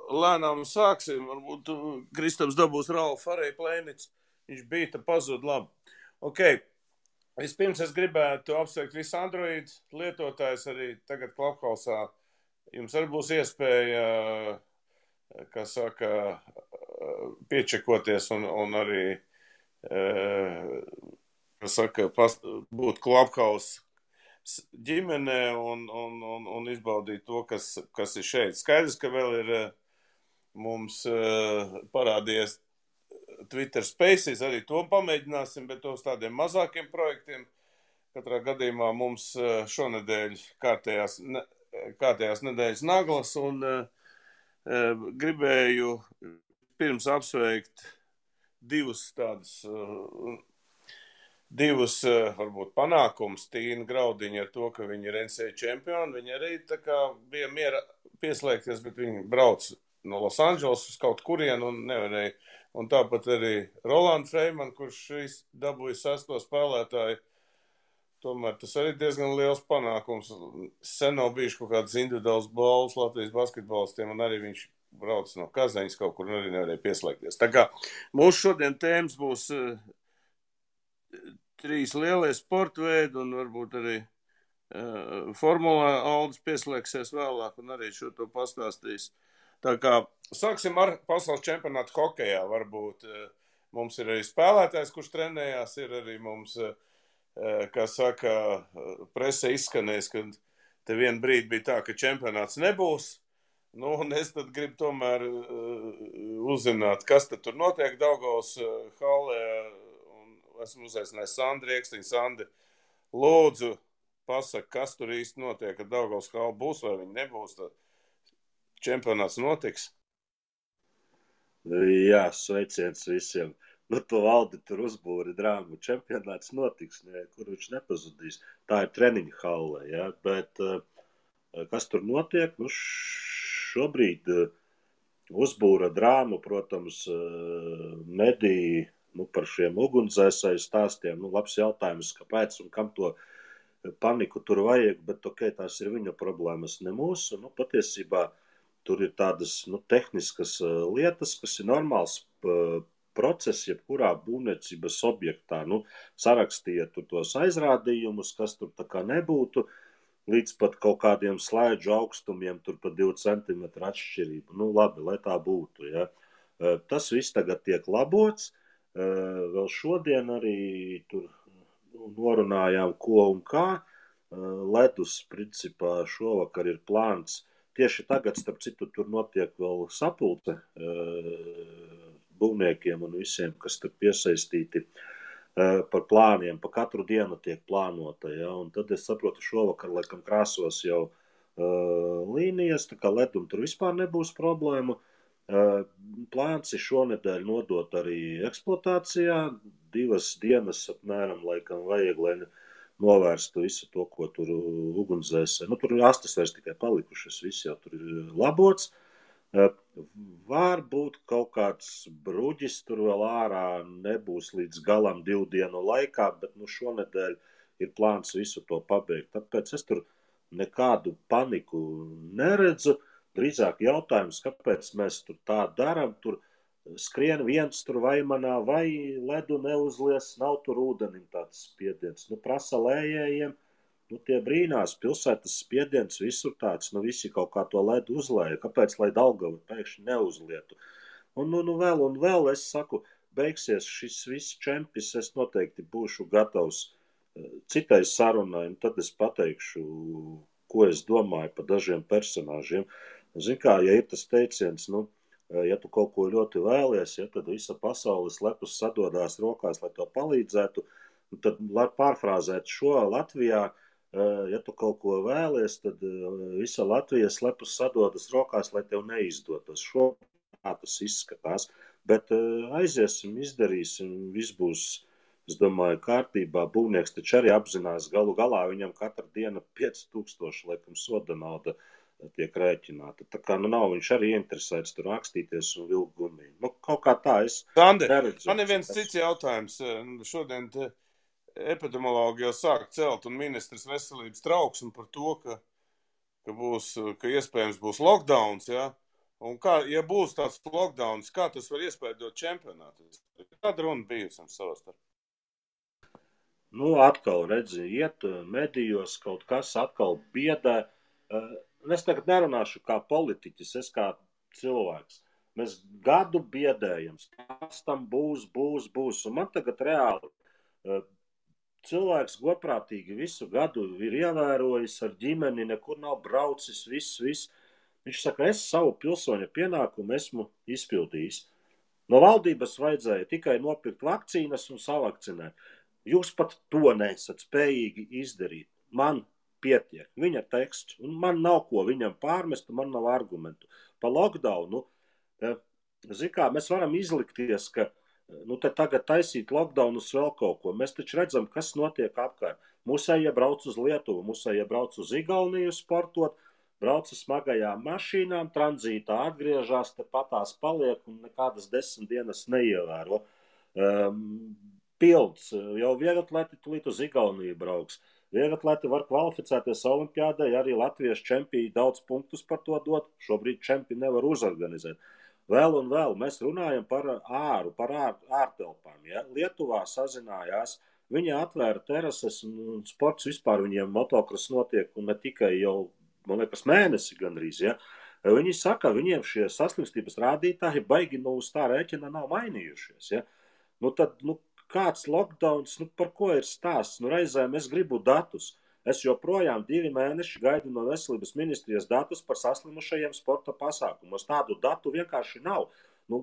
lēnām sāksim. Varbūt Kristaps dabūs Ralfu arī Plēnicu. Viņš bija, te pazūd labi. Ok. Vispirms es gribētu apsveikt visu Android lietotājus arī tagad Clubhouse-ā. Jums arī būs iespēja, kā saka, piečekoties un arī, kā saka, būt Clubhouse ģimenē un izbaudīt to, kas ir šeit. Skaidrs, ka vēl ir mums parādījies Twitter Spaces, arī to pamēģināsim, bet to uz tādiem mazākiem projektiem. Katrā gadījumā mums šonedēļ kārtējās nedēļas naglas un gribēju pirms apsveikt divus varbūt panākums Tīna Graudiņa ar to, ka viņi ir NCAA čempioni. Viņi arī tā kā bija miera pieslēgties, bet viņi brauc no Los Angeles uz kaut kurien un nevarēja. Un tāpat arī Rolanda Freiman, kurš dabūja 6. spēlētāju. Tomēr tas arī diezgan liels panākums. Sen nav bijuši kaut kādas individuāls balvas Latvijas basketbolistiem, un arī viņš brauc no Kazaņas kaut kur un arī nevarēja pieslēgties. Tā kā mūsu šodien tēmas būs 3 lielie sporta veidi un varbūt arī formulā Aldis pieslēgsies vēlāk un arī šo to pastāstīs. Tā kā sāksim ar pasaules čempionātu hokejā. Varbūt mums ir arī spēlētājs, kurš trenējās, ir arī mums, kā saka, prese izskanēs, ka te vienu brīdi bija tā, ka čempionāts nebūs. Nu, un es tad gribu tomēr uzzināt, kas tad tur notiek Daugavas hallē. Un esmu uzaicinājis Sandri Riekstiņu. Sandri, lūdzu, pasaka, kas tur īsti notiek, ka Daugavas halla būs vai viņi nebūs. Tad čempionāts notiks? Jā, sveiciens visiem. Nu, to Valdi tur uzbūri drāmu. Čempionāts notiks, kur viņš nepazudīs. Tā ir treniņa hallē, jā. Bet kas tur notiek? Nu, šobrīd uzbūra drāmu, protams, mediji par šiem ugunsdzēsēju stāstiem. Nu, labs jautājums, kāpēc un kam to paniku tur vajag, bet ok, tās ir viņa problēmas, ne mūsu. Nu, patiesībā tur ir tādas tehniskas lietas, kas ir normāls process, jebkurā būvniecības objektā. Nu, sarakstīja tur tos aizrādījumus, kas tur tā kā nebūtu, līdz pat kaut kādiem slēdžu augstumiem, tur pat 2 centimetru atšķirību. Nu, labi, lai tā būtu, ja. Tas viss tagad tiek labots. Vēl šodien arī tur norunājām, ko un kā. Ledus, principā, šovakar ir plāns. Tieši tagad, starp citu, tur notiek vēl sapulce būvniekiem un visiem, kas tur piesaistīti par plāniem. Pa katru dienu tiek plānota, ja? Un tad es saprotu, šovakar, laikam, krāsos jau līnijas, tā kā ledum tur vispār nebūs problēmu. Plāns ir šonedēļ nodot arī eksploatācijā. 2 dienas apmēram, laikam, vajag, lai novērstu visu to, ko tur ugunsdzēsē. Nu, tur astes vairs tikai palikušas, viss jau tur ir labots. Varbūt kaut kāds bruģis tur vēl ārā nebūs līdz galam 2 dienu laikā, bet šonedēļ ir plāns visu to pabeigt. Tāpēc es tur nekādu paniku neredzu. Drīzāk jautājums, kāpēc mēs tur tā daram, tur skrien viens tur vaimanā, vai ledu neuzlies, nav tur ūdenim tāds spiediens. Nu, prasa lējējiem, tie brīnās, pilsētas spiediens visur tāds, visi kaut kā to ledu uzlēja. Kāpēc, lai Daugava pēkšņi neuzlietu? Un vēl, es saku, beigsies šis viss čempis, es noteikti būšu gatavs citai sarunai, un tad es pateikšu, ko es domāju par dažiem personāžiem. Zin kā, ja ir tas teiciens, ja tu kaut ko ļoti vēlies, ja, tad visa pasaules lepus sadodās rokās, lai to palīdzētu. Tad, lai pārfrāzētu šo Latvijā, ja tu kaut ko vēlies, tad visa Latvijas lepus sadodas rokās, lai tev neizdotos. Šo tā tas izskatās. Bet aiziesim, izdarīsim, viss būs, es domāju, kārtībā. Būvnieks taču arī apzinās, galu galā viņam katra diena 5000, laikam, soda nauda tiek rēķināta. Tā kā nav viņš arī interesēts tur rakstīties un vilkt gumiju. Kaut kā tā es neredzu. Man ir viens cits jautājums. Šodien epidemiologi jau sāk celt un ministrs veselības trauksmi par to, ka iespējams būs lockdowns, ja? Un kā, ja būs tāds lockdowns, kā tas var iespēdot čempionātu? Kāda runa bijusi savā starpā? Nu, atkal redzi, iet medijos kaut kas atkal biedē. Es tagad nerunāšu kā politiķis, es kā cilvēks. Mēs gadu biedējam, tas tam būs. Un man tagad reāli cilvēks godprātīgi visu gadu ir ievērojis ar ģimeni, nekur nav braucis, viss. Viņš saka, es savu pilsoņa pienākumu esmu izpildījis. No valdības vajadzēja tikai nopirkt vakcīnas un savakcinēt. Jūs pat to nesat spējīgi izdarīt. Man pietiek. Viņa teksts, un man nav ko viņam pārmest, man nav argumentu. Pa lockdownu, mēs varam izlikties, ka te tagad taisīt lockdownus vēl kaut ko. Mēs taču redzam, kas notiek apkārt. Mūsējie brauc uz Lietuvu, mūsējie brauc uz Igauniju sportot, brauca smagajām mašīnām, tranzītā atgriežās, te patās paliek un nekādas 10 dienas neievēro. Pilds, jau vieglatlēti tulīt uz Igauniju brauks. Vieglatlēti var kvalificēties olimpiādai, arī latviešu čempioni daudz punktus par to dot, šobrīd čempioni nevar uzorganizēt. Vēl un vēl mēs runājam par ārtelpām. Ja? Lietuvā sazinājās, viņi atvēra terases un sports vispār viņiem motokross notiek un ne tikai jau, man liekas, mēnesi gandrīz. Ja? Viņi saka, viņiem šie saslimstības rādītāji baigi uz tā rēķina nav mainījušies. Ja? Tad, kāds lockdowns, par ko ir stāsts? Reizēm es gribu datus. Es joprojām 2 mēneši gaidu no veselības ministrijas datus par saslimušajiem sporta pasākumos. Tādu datu vienkārši nav.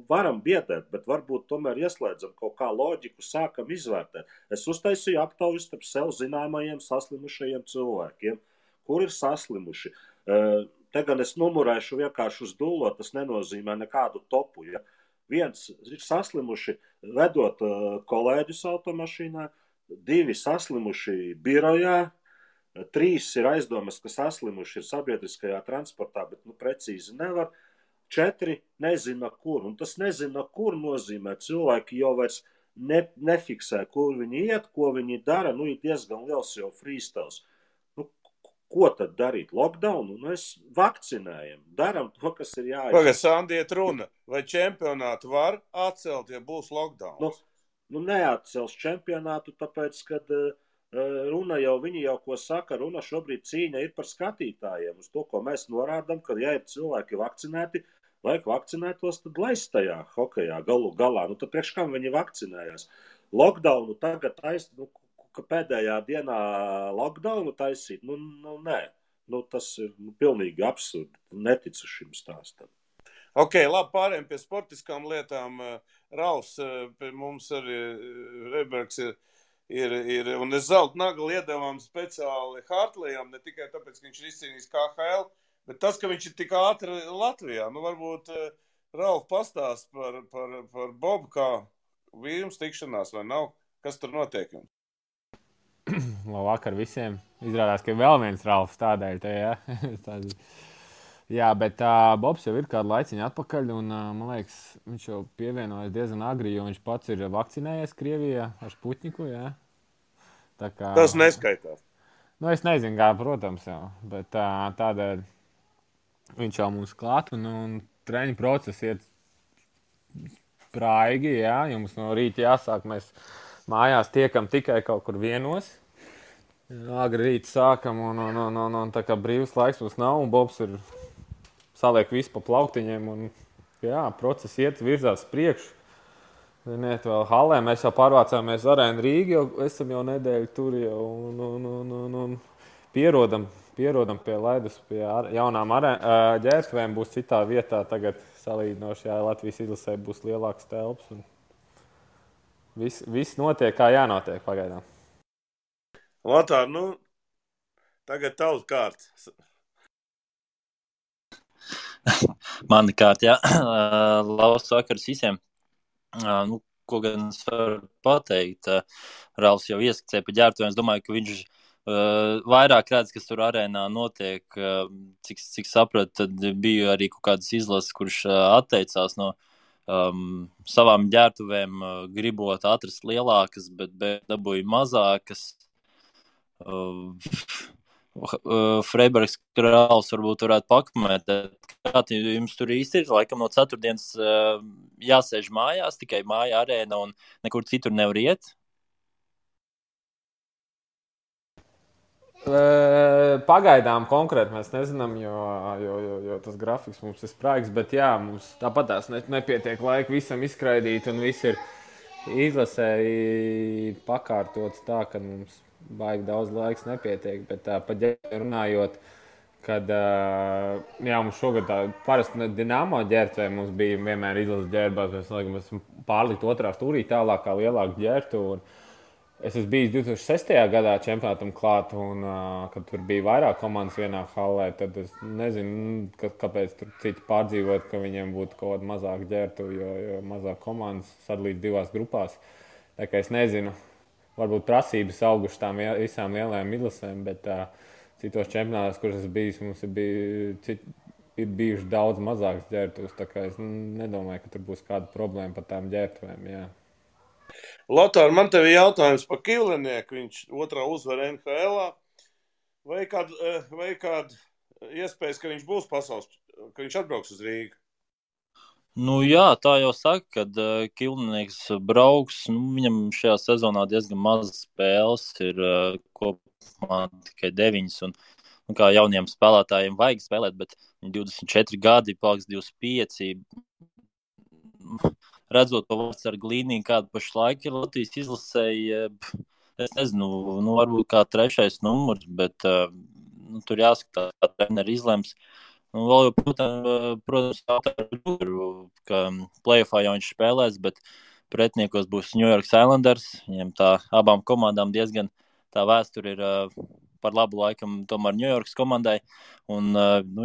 Varam biedēt, bet varbūt tomēr ieslēdzam kaut kā loģiku, sākam izvērtēt. Es uztaisīju aptauju starp sev zināmajiem saslimušajiem cilvēkiem, kur ir saslimuši. Te gan es numurēšu vienkārši uz dullo, tas nenozīmē nekādu topu. Ja? Viens ir saslimuši vedot kolēģus automašīnā, 2 saslimuši birojā, 3 ir aizdomas, ka saslimuši ir sabiedriskajā transportā, bet precīzi nevar. 4 nezina kur, un tas nezina kur nozīmē. Cilvēki jau vairs nefiksē, kur viņi iet, ko viņi dara, ir diezgan liels jau freestyles. Ko tad darīt? Lockdownu? Mēs vakcinējam, daram to, kas ir jāiet. Pagad, Sandiet runa, vai čempionātu var atcelt, ja būs lockdowns? Neatcels čempionātu, tāpēc, kad viņi jau ko saka, runa šobrīd cīņa ir par skatītājiem. Uz to, ko mēs norādām, ka ja ir cilvēki vakcinēti, vajag vakcinētos, tad laist tajā hokejā galu galā. Tad priekš kam viņi vakcinējās? Lockdownu tagad ka pēdējā dienā lockdownu taisīt? Nē. Tas ir pilnīgi absurdi. Neticu šim stāstam. Ok, labi, pārējiem pie sportiskām lietām. Ralfs, pie mums arī Rebergs ir un es zelta nagli iedevām speciāli Hartlejam, ne tikai tāpēc, ka viņš ir izcīnījis KHL, bet tas, ka viņš ir tik ātri Latvijā. Varbūt Ralf pastāst par Bobu, kā vīrums tikšanās vai nav? Kas tur notiek? Labvakar visiem. Izrādās, ka vēl viens Ralfs tādēļ te, ja? Jā, bet Bobs jau ir kādu laiciņu atpakaļ, un man liekas, viņš jau pievienojas diezgan agri, jo viņš pats ir vakcinējies Krievijā ar Sputniku, jā. Tā kā, tas neskaitās. Es nezinu, kā, protams, jau, bet tādēļ viņš jau mums klāt, un treniņu process iet praigi, jā, jums no rīta jāsāk, mēs mājās tiekam tikai kaut kur 1. Agri rīt sākam, un tā kā brīvs laiks mums nav, un Bobs ir saliek visu pa plauktiņiem, un jā, process iet virzās priekšu. Ziniet, vēl halē, mēs jau pārvācāmies Arēnu Rīgu, jau esam jau nedēļu tur jau, un pierodam pie ledus, pie jaunām ģērbtuvēm būs citā vietā, tagad salīdzinošajā Latvijas izlasē būs lielāks telps, un viss notiek, kā jānotiek pagaidām. Lotār, tagad tavs kārts. Mani kārt, jā. Labs vakars visiem. Ko gan es varu pateikt? Ralfs jau ieskicēja pa ģērbtuvēm. Es domāju, ka viņš vairāk redz, kas tur arēnā notiek. Cik sapratu, tad bija arī kaut kādas izlases, kurš atteicās no savām ģērbtuvēm, gribot atrast lielākas, bet dabūja mazākas. Freibergs Ralfs varbūt varētu pakomentēt, jums tur īsti ir, laikam no ceturtdienas jāsēž mājās, tikai māja arēna un nekur citur nevar iet? Pagaidām konkrēti mēs nezinām, jo tas grafiks mums ir spraigs, bet jā, mums tāpatās nepietiek laika visam izskraidīt un viss ir izlasēji pakārtots tā, ka mums baigi daudz laiks nepietiek, bet pa ģērbēm runājot, kad jā, mums šogad tā parasti Dinamo ģērbtuvē mums bija vienmēr izlases ģērbās, mēs esam pārlikt otrā stūrī tālākā lielāku ģērbtuvu. Es esmu bijis 2006. Gadā čempionātam klāt, un kad tur bija vairāk komandas vienā hallē, tad es nezinu, kāpēc tur citi pārdzīvot, ka viņiem būtu kaut kāda mazāka ģērbtuve, jo mazāk komandas sadalīt divās grupās. Tā kā es nezinu, varbūt prasības auguši tām visām lielajām izlasēm, bet citos čempionātos, kuras es bijis, mums ir bijuši daudz mazākas ģērbtuves, tā kā es nedomāju, ka tur būs kāda problēma par tām ģērbtuvēm, jā. Lotār, man tev ir jautājums par Kivlenieku. Viņš otrā uzvara NHL-ā. Vai kāda iespējas, ka viņš būs pasaules, ka viņš atbrauks uz Rīgu? Nu jā, tā jau saka, kad Kivlenieks brauks. Viņam šajā sezonā diezgan maz spēles, ir kopumā tikai 9. Un kā jauniem spēlētājiem vajag spēlēt, bet 24 gadi, paliks 25. Redzot to vārdsargu līniju, kāda pašlaik ir Latvijas izlasēji, es nezinu, varbūt kā 3. numurs, bet tur jāskatās, kā treneri izlems. Vēl jau, protams, ka play-offā jau viņš spēlēs, bet pretiniekos būs New York Islanders. Viņiem tā abām komandām diezgan tā vēsture ir par labu laikam tomēr New Yorkas komandai. Un,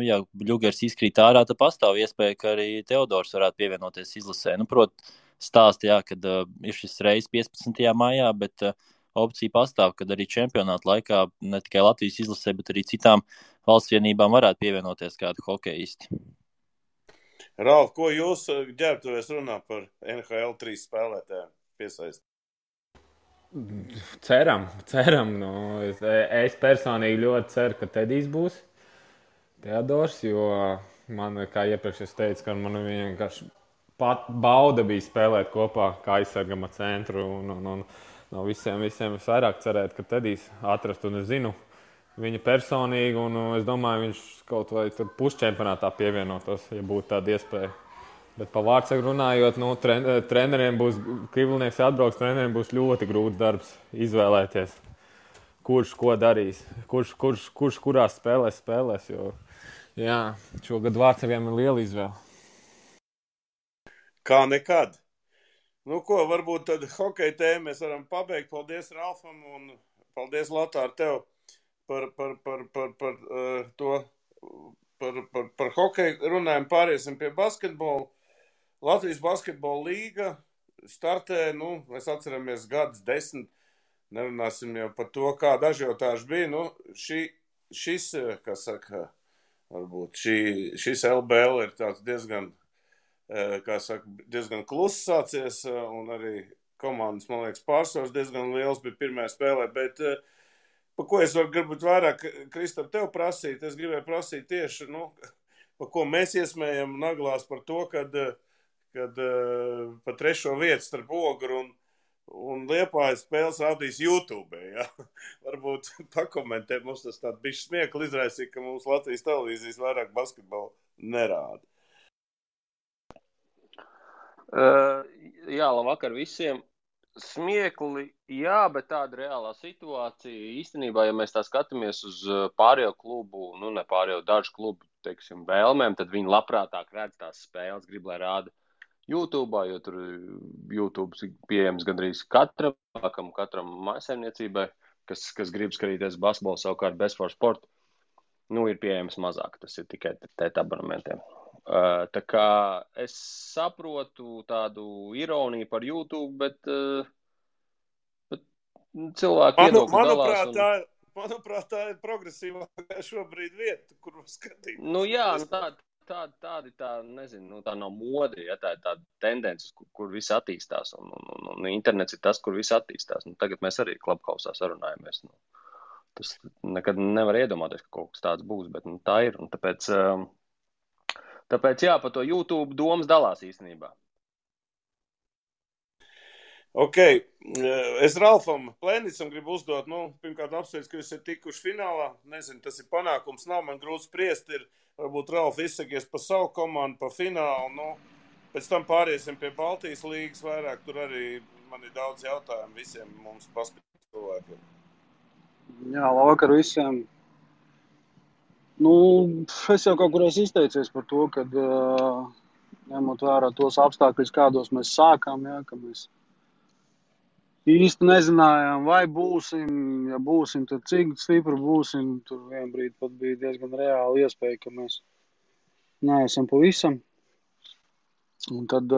ja Ļugers izkrīt ārā, tad pastāv iespēja, ka arī Teodors varētu pievienoties izlasē. Stāsti, jā, kad ir šis reizes 15. maijā, bet opcija pastāv, kad arī čempionāta laikā ne tikai Latvijas izlasē, bet arī citām valsts vienībām varētu pievienoties kādu hokeisti. Ralf, ko jūs ģērbtuvēs runā par NHL 3 spēlētājiem piesaist? Ceram. Es personīgi ļoti ceru, ka Tedijs būs Teodors, jo man, kā iepriekš es teicu, ka man vienkārši pat bauda bija spēlēt kopā kā aizsargama centru un no visiem visvairāk cerēt, ka Tedijs atrast, un es zinu viņa personīgi, un es domāju, viņš kaut vai tur pusčempionātā pievienotos, ja būtu tāda iespēja. Bet par vārdsargu runājot, treneriem būs, Kivlenieks atbrauks, treneriem būs ļoti grūts darbs izvēlēties, kurš ko darīs, kurš kurās spēlēs, jo jā, šogad vārdsargiem ir liela izvēle. Kā nekad. Varbūt tad hokeja tēmu mēs varam pabeigt. Paldies Ralfam un paldies Lotār tev par to, par hokeju runājumu. Pāriesim pie basketbola. Latvijas basketbola līga startē, mēs atceramies gadus 10, nerunāsim jau par to, kāda ažiotāža bija. Šis, kā saka, varbūt šis LBL ir tāds diezgan kluss sācies, un arī komandas, man liekas, pārsvars diezgan liels bija pirmajā spēlē, bet pa ko es gribu vairāk, Kristap, tev prasīt, es gribēju prasīt tieši, pa ko mēs iesmējam naglās par to, kad pa 3. vietu starp Ogru un Liepājas spēles rādīs YouTube, ja? Varbūt pakomentē, mums tas tādu bišķi smiekli izraisīja, ka mums Latvijas televīzijas vairāk basketbolu nerāda. Jā, labvakar visiem. Smiekli, jā, bet tāda reālā situācija īstenībā, ja mēs tā skatāmies uz pārējo klubu, ne pārējo dažu klubu, teiksim, vēlmēm, tad viņi labprātāk redz tās spēles, grib, lai rāda YouTube'ā, jo tur YouTube ir pieejams gandrīz katram mājsaimniecībai, kas grib skatīties basketbolu, savukārt Best for Sport, ir pieejams mazāk, tas ir tikai tēt abonementiem. Tā kā es saprotu tādu ironiju par YouTube, bet cilvēki viedokļi dalās. Manuprāt, tā ir progresīvākā šobrīd vieta, kur skatīt. Jā, tā nezinu, tā nav mode, ja tā ir tāda tendence, kur viss attīstās, un internets ir tas, kur viss attīstās. Tagad mēs arī Clubhouse sarunājamies. Tas nekad nevar iedomāties, ka kaut kas tāds būs, bet tā ir, un tāpēc Tāpēc, jā, par to YouTube domas dalās īstenībā. Ok, es Ralfam Plēnicam gribu uzdot, pirmkārt apsveic, ka jūs esat tikuši finālā. Nezinu, tas ir panākums, nav man grūti spriest, varbūt Ralf izsakies par savu komandu, par finālu, pēc tam pāriesim pie Baltijas līgas vairāk, tur arī man ir daudz jautājumu visiem mums paskatīt cilvēkiem. Jā, labvakar visiem. Es jau kaut kur esmu izteicies par to, ka ņemot vērā tos apstākļus, kādos mēs sākām, jā, ka mēs īsti nezinājām, vai būsim, ja būsim, tad cik stipri būsim. Tur vien brīdi pat bija diezgan reāla iespēja, ka mēs neesam pavisam. Un tad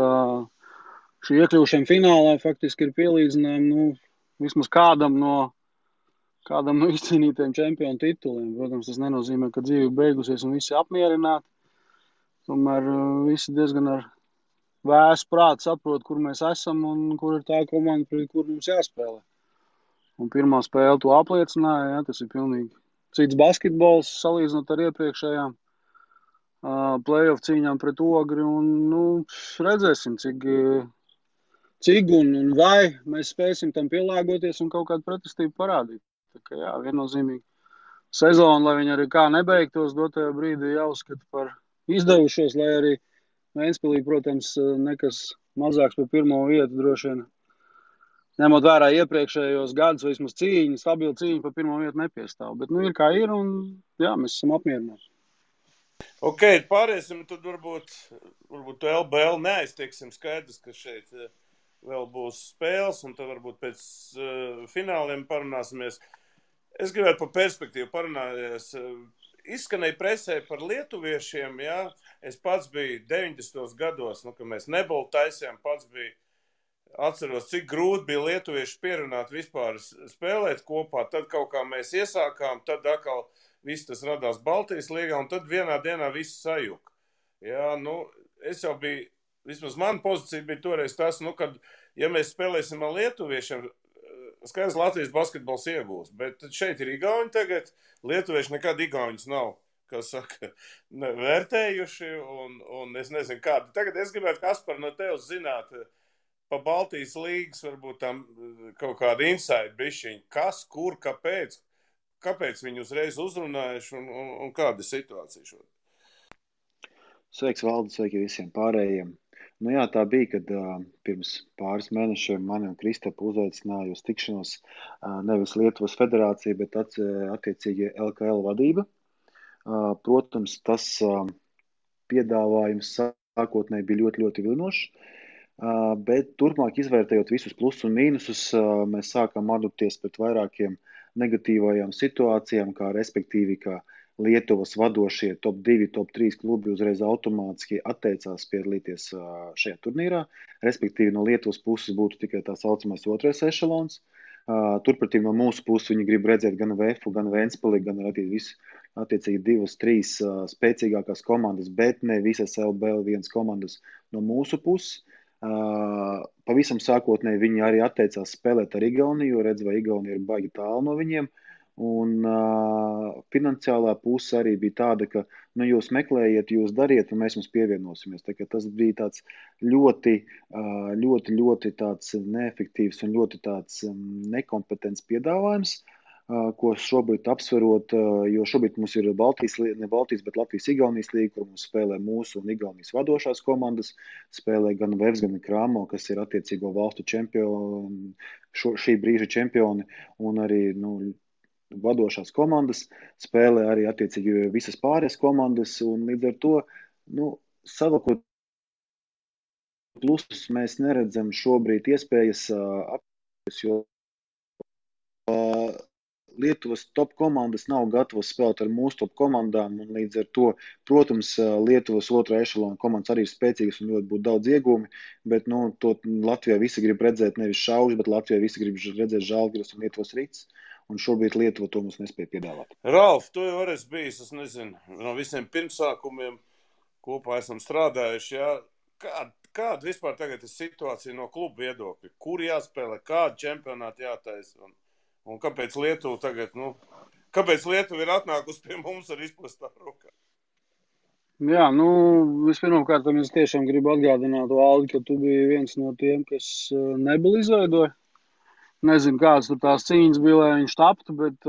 šī iekļūšana finālā faktiski ir pielīdzinājuma, vismaz kādam no izcīnītiem čempionu tituliem. Protams, tas nenozīmē, ka dzīve beigusies un visi apmierināti. Tomēr visi diezgan ar vēsu prātu saprot, kur mēs esam un kur ir tā komanda, pret kur mums jāspēlē. Un pirmā spēle to apliecināja, jā, tas ir pilnīgi cits basketbols salīdzinot ar iepriekšējām playoff cīņām pret Ogri. Un, redzēsim, cik un vai mēs spēsim tam pielāgoties un kaut kādu pretestību parādīt. Tā kā jā, viennozīmīgi sezonu, lai viņi arī kā nebeigtos, dotajā brīdī jāuzskata par izdevušos, lai arī Ventspilī, protams, nekas mazāks par pirmo vietu droši vien. Ņemot vērā iepriekšējos gadus, vai vismaz stabila cīņa par pirmo vietu nepiestāv. Bet ir kā ir un jā, mēs esam apmierināti. Ok, pāriesim, tad varbūt to LBL neaiztieksim skaidrs, ka šeit vēl būs spēles un tad varbūt pēc fināliem parunāsimies. Es gribētu par perspektīvu parunāties. Izskanēja presē par lietuviešiem, jā. Es pats biju 90. gados, kad mēs nebolu taisījām, pats biju atceros, cik grūti bija lietuvieši pierunāt vispār spēlēt kopā. Tad kaut kā mēs iesākām, tad atkal viss tas radās Baltijas līgā, un tad vienā dienā viss sajuka. Jā, es jau biju, vismaz mana pozīcija bija toreiz tas, kad, ja mēs spēlēsim ar lietuviešiem, skaidrs Latvijas basketbols iegūs, bet šeit ir igauņi tagad, lietuvieši nekad igauņus nav, kas saka, vērtējuši, un es nezinu kādu. Tagad es gribētu, Kaspar, no tevis zināt, pa Baltijas līgas varbūt tam kaut kādu insight bišķiņu, kas, kur, kāpēc viņi uzreiz uzrunājuši, un kāda situācija šodien? Sveiks, Valdi, sveiki visiem pārējiem. Jā, tā bija, kad pirms pāris mēnešiem mani un Kristapu uzaicināja uz tikšanos nevis Lietuvas federācija, bet attiecīgi LKL vadība. Protams, tas piedāvājums sākotnēji bija ļoti, ļoti vilinošs, bet turpmāk izvērtējot visus plusus un mīnusus, mēs sākām adapties pret vairākiem negatīvajām situācijām, kā respektīvi, ka Lietuvas vadošie top 2, top 3 klubi uzreiz automātiski atteicās piedalīties šajā turnīrā. Respektīvi, no Lietuvas puses būtu tikai tā saucamais otrais ešelons. Turpretī no mūsu puses viņi grib redzēt gan VF, gan Ventspili, gan attiecīgi 2, 3 spēcīgākās komandas, bet ne visas LBL1 komandas no mūsu puses. Pavisam sākotnēji viņi arī atteicās spēlēt ar Igauniju, jo redz, vai Igaunija ir baigi tālu no viņiem. Un finansiālā puse arī bija tāda, ka jūs meklējiet, jūs dariet, un mēs jums pievienosimies. Tā kā tas bija tāds ļoti tāds neefektīvs un ļoti tāds nekompetents piedāvājums, ko šobrīd apsverot, jo šobrīd mums ir ne Baltijas, bet Latvijas-Igaunijas līga, kur mums spēlē mūsu un Igaunijas vadošās komandas, spēlē gan Vevs, gan Krāmo, kas ir attiecīgo valstu čempioni, šī brīža čempioni, un arī, vadošās komandas, spēlē arī attiecīgi visas pārējās komandas, un līdz ar to, savakot plusus mēs neredzam šobrīd iespējas apgādāt, jo Lietuvas top komandas nav gatavas spēlēt ar mūsu top komandām, un līdz ar to, protams, Lietuvas otrā ešalona komandas arī ir spēcīgas un ļoti būtu daudz iegūmi, bet, to Latvijā visi grib redzēt nevis Šaužu, bet Latvijā visi grib redzēt Žalgiris un Lietuvas Rīts. Un šobrīd Lietuva to mums nespēja piedāvāt. Ralf, tu jau esi bijis, es nezinu, no visiem pirmsākumiem kopā esam strādājuši, jā. Kāda vispār tagad ir situācija no klubu viedokļa? Kur jāspēlē, kādu čempionātu jātaisa? Un kāpēc Lietuva tagad, kāpēc Lietuva ir atnākusi pie mums ar izplestā rokā? Jā, vispirmkārt, es tiešām gribu atgādināt, Valdi, ka tu biji viens no tiem, kas nebuli izveidoja. Nezinu, kādas tur tās cīņas bija, lai viņš taptu, bet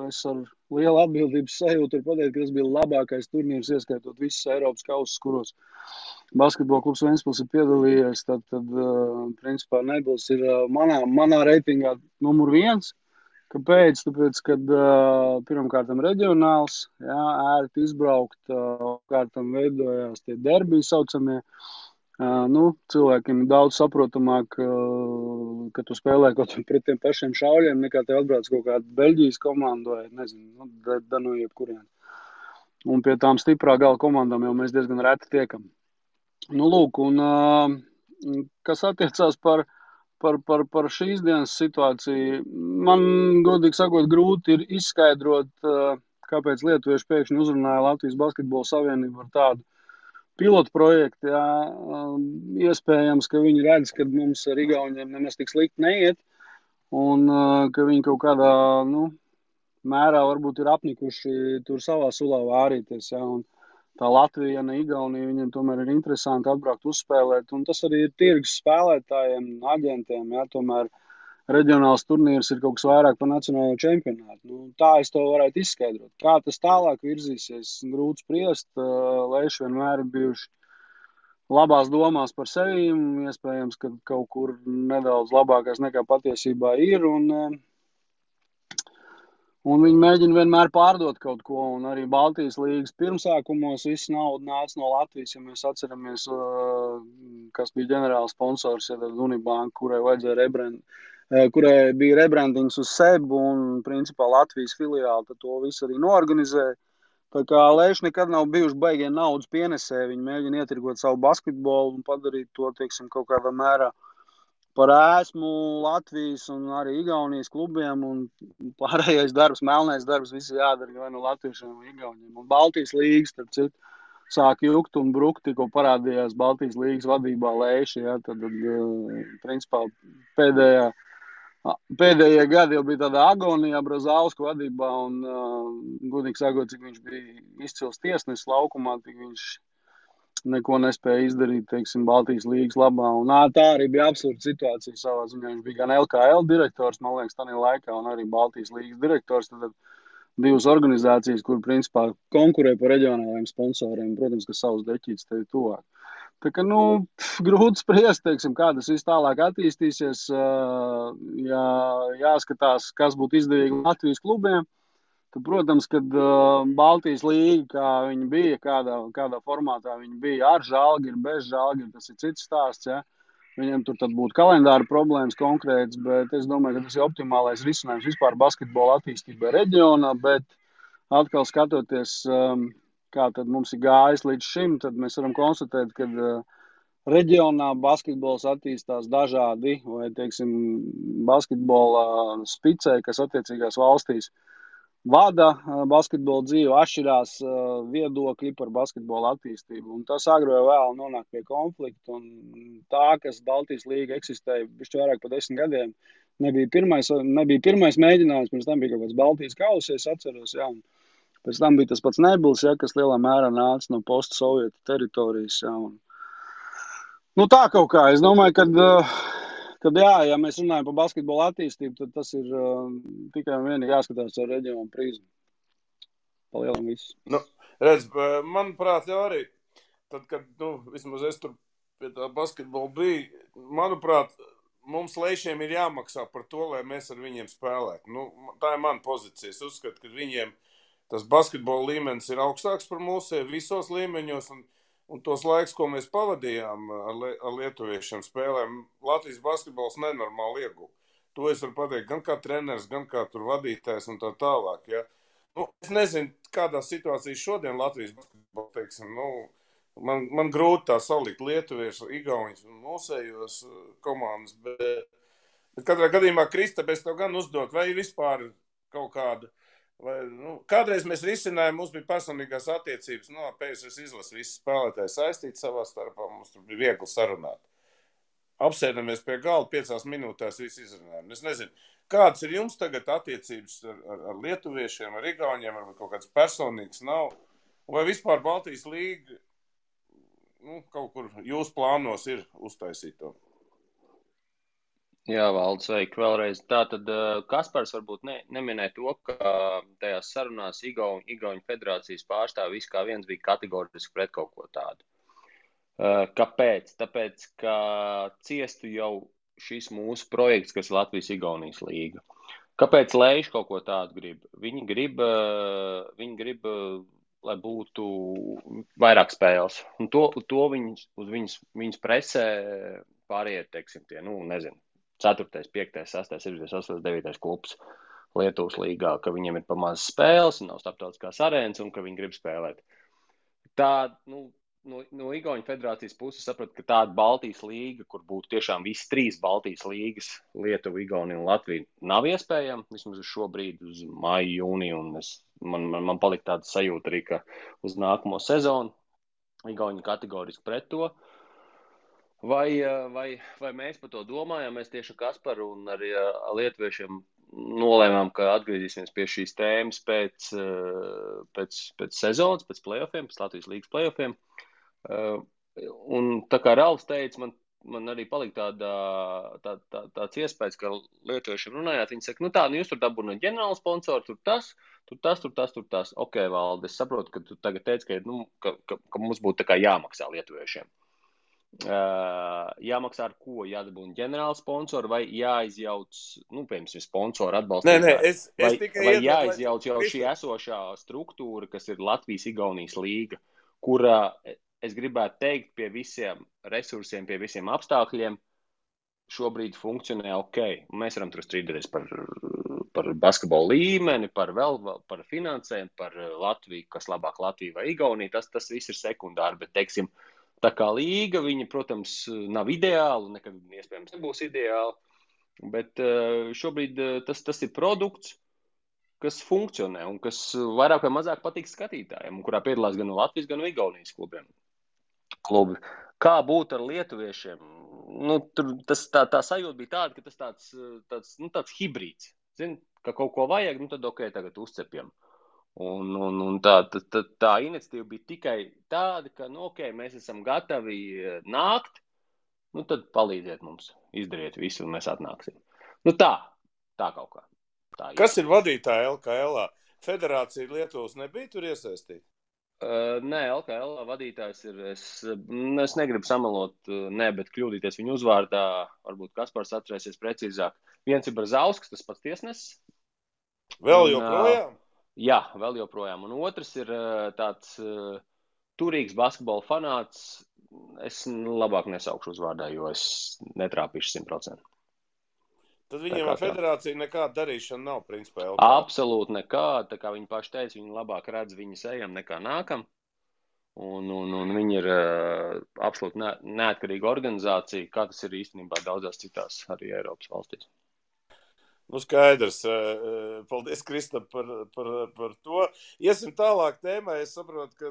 es ar lielu atbildības sajūtu ir pateikt, ka tas bija labākais turnīrs, ieskaitot visas Eiropas kausus, kuros basketbola klubs Ventspils ir piedalījies. Tad principā Nebils ir manā reitingā numur 1. Kāpēc? Tāpēc, kad pirmkārtam reģionāls, ērti izbraukt, kārtam veidojās tie derbiji saucamie. Cilvēkiem daudz saprotamāk, ka tu spēlē kaut pret tiem pašiem šauļiem, nekā tev atbrauc kaut kāda Beļģijas komanda vai, nezinu, no jebkurien. Un pie tām stiprā gala komandām jau mēs diezgan reti tiekam. Lūk, un kas attiecās par šīs dienas situāciju, man, godīgi sakot, grūti ir izskaidrot, kāpēc lietuvieši pēkšņi uzrunāja Latvijas Basketbola Savienību ar tādu pilotu projektu. Iespējams, ka viņi redz, ka mums ar Igauniem nemaz tik slikti neiet, un ka viņi kaut kādā mērā varbūt ir apnikuši tur savā sulā vārīties. Un tā Latvija, ne Igaunija, viņiem tomēr ir interesanti atbraukt uzspēlēt, un tas arī ir tirgus spēlētājiem, aģentiem, tomēr reģionāls turnīrs ir kaut kas vairāk par nacionālo čempionātu. Tā es to varētu izskaidrot. Kā tas tālāk virzīsies, grūti spriest, Leiši vienmēr ir bijuši labās domās par sevi, iespējams, ka kaut kur nedaudz labākais nekā patiesībā ir, un viņi mēģina vienmēr pārdot kaut ko, un arī Baltijas līgas pirmsākumos viss nauda nāca no Latvijas, ja mēs atceramies, kas bija ģenerāls sponsors, Unibanka, kurai bija rebrandings uz Sebu, un principā Latvijas filiāli to visu arī noorganizēja. Tā kā Leiši nekad nav bijuši baigie naudas pienesē, viņi mēģina ietirgot savu basketbolu un padarīt to, teiksim, kaut kādā mērā par ēsmu Latvijas un arī Igaunijas klubiem, un pārējais darbs, melnais darbs, visi jādara vai no latviešiem vai Igauniem. Un Baltijas līgas, starp citu, sāk jukt un brukt, tikko parādījās Baltijas līgas vadībā Leiši, tad principā pēdējie gadi jau bija tādā agonijā Brazausku vadībā, un godīgi sakot, cik viņš bija izcils tiesnesis laukumā, tik viņš neko nespēja izdarīt, teiksim, Baltijas līgas labā. Un tā arī bija absurda situācija savā ziņā. Viņš bija gan LKL direktors, man liekas, tādā laikā, un arī Baltijas līgas direktors. Tad divas organizācijas, kur principā konkurē par reģionālajiem sponsoriem, protams, ka savus deķītes tevi tuvāk. Tā kā, grūti spriest, teiksim, kā tas viss tālāk attīstīsies. Jāskatās, kas būtu izdevīgi Latvijas klubiem. Tad, protams, kad Baltijas līga, kā viņi bija, kādā formātā viņi bija, ar Žalgiru, bez Žalgiru, tas ir cits stāsts. Viņiem tur tad būtu kalendāra problēmas konkrēts, bet es domāju, ka tas ir optimālais risinājums vispār basketbola attīstībai reģionā, bet atkal skatoties, kā tad mums ir gājis līdz šim, tad mēs varam konstatēt, ka reģionā basketbols attīstās dažādi, vai, teiksim, basketbola spicē, kas attiecīgās valstīs vada basketbola dzīvi, atšķirās viedokļi par basketbola attīstību. Un tas agri vai vēl nonāk pie konflikta. Un tā, kas Baltijas līga eksistēja bišķi vairāk par 10 gadiem, nebija pirmais mēģinājums, pirms tam bija kaut kāds Baltijas kausa, es atceros, un pēc tam bija tas pats Nebils, kas lielā mērā nāca no post-sovietu teritorijas. Tā kaut kā, es domāju, kad ja mēs runājam par basketbola attīstību, tad tas ir tikai un vienīgi jāskatās ar reģionu prizmu. Palielam visu. Redz, manuprāt, jau arī, tad, kad, vismaz es tur pie tā basketbola biju, manuprāt, mums Leišiem ir jāmaksā par to, lai mēs ar viņiem spēlētu. Tā ir mana pozīcija. Es uzskatu, ka viņiem tas basketbola līmenis ir augstāks par mūsu visos līmeņos, un tos laiks, ko mēs pavadījām ar lietuviešiem spēlēm, Latvijas basketbols nenormāli ieguva. To es varu pateikt gan kā treneris, gan kā tur vadītājs un tā tālāk. Ja. Es nezinu, kādā situācijā šodien Latvijas basketbols, teiksim, man grūti tā salikt lietuviešu, igauņus un mūsējos komandas, bet katrā gadījumā, Kristap, es tev gan uzdot, vai vispār kaut kāda. Kādreiz mēs risinājām, mums bija personīgās attiecības, PSRS izlases visi spēlētāji saistīti savā starpā, mums tur bija viegli sarunāt. Apsēdamies pie galda, 5 minūtēs visi izrunājām. Es nezinu, kādas ir jums tagad attiecības ar lietuviešiem, ar igauņiem, ar kaut kāds personīgs nav, Vai vispār Baltijas līga kaut kur jūs plānos ir uztaisīt to? Jā, Valdi, sveiki vēlreiz. Tātad Kaspars varbūt neminēja to, ka tajās sarunās Igauņu federācijas pārstāvi viss kā viens bija kategoriski pret kaut ko tādu. Kāpēc? Tāpēc, ka ciestu jau šis mūsu projekts, kas ir Latvijas-Igaunijas līga. Kāpēc Leiši kaut ko tādu grib? Viņi grib, lai būtu vairāk spēles. Un to viņas presē pāriet, teiksim, tie, nezinu, 4., 5., 6., 7., 8., 9. klubs Lietuvas līgā, ka viņiem ir pamazs spēles, nav starptautiskās arēnas un ka viņi grib spēlēt. Tā, no Igauņu federācijas puses sapratu, ka tāda Baltijas līga, kur būtu tiešām visas 3 Baltijas līgas, Lietuva, Igaunija un Latvija, nav iespējama, vismaz uz šo brīdi, uz māju, jūniju, un man palika tāda sajūta arī, ka uz nākamo sezonu Igauņi kategoriski pret to. Vai mēs par to domājam? Mēs tieši Kasparu un arī lietuviešiem nolēmām, ka atgriezīsimies pie šīs tēmas pēc sezonas, pēc play-offiem, pēc Latvijas līgas play-offiem. Un tā kā Ralfs teica, man arī palika tāds iespējas, ka lietuviešiem runājāt, viņi saka, jūs tur dabūnāt ģenerālu sponsoru, tur tas. Ok, Valdi, es saprotu, ka tu tagad teici, ka mums būtu tā kā jāmaksā lietuviešiem. Jāmaksā ar ko? Jādabūna ģenerāla sponsora vai jāizjauc, piemēram, sponsoru atbalstītāji? Vai jāizjauc jau šī esošā struktūra, kas ir Latvijas-Igaunijas līga, kurā, es gribētu teikt, pie visiem resursiem, pie visiem apstākļiem šobrīd funkcionē ok. Mēs varam tur strīdēties par basketbolu līmeni, par finansēm, par Latviju, kas labāk Latvija vai Igaunija, tas viss ir sekundāri, bet, teiksim, tā kā līga, viņa, protams, nav ideāla, nekad iespējams nebūs ideāla, bet šobrīd tas ir produkts, kas funkcionē un kas vairāk vai mazāk patīk skatītājiem, un kurā piedalās gan Latvijas, gan Igaunijas klubi. Kā būt ar lietuviešiem? Tā sajūta bija tāda, ka tas tāds hibrīds. Zini, ka kaut ko vajag, tad ok, tagad uzcepjam. Un tā iniciatīva bija tikai tāda, ka, ok, mēs esam gatavi nākt, tad palīdziet mums, izdariet visu, un mēs atnāksim. Tā kaut kā. Kas ir vadītāja LKL? Federācija Lietuvas nebija tur iesaistīta? Nē, LKL vadītājs ir, es negribu samalot, bet kļūdīties viņu uzvārdā, varbūt Kaspars atcerēsies precīzāk. Viens ir Brazausks, tas pats tiesnesis. Vēl joprojām? Jā, vēl joprojām. Un otrs ir tāds turīgs basketbola fanāts. Es labāk nesaukšu uzvārdā, jo es netrāpīšu 100%. Tad viņiem ar federāciju nekāda darīšana nav, principā. Absolūti nekāda. Tā kā viņi paši teica, viņi labāk redz viņas ejam nekā nākam. Un viņi ir absolūti neatkarīga organizācija, kā tas ir īstenībā daudzās citās arī Eiropas valstīs. Skaidrs. Paldies, Kristap, par to. Iesim tālāk tēmā. Es saprotu, ka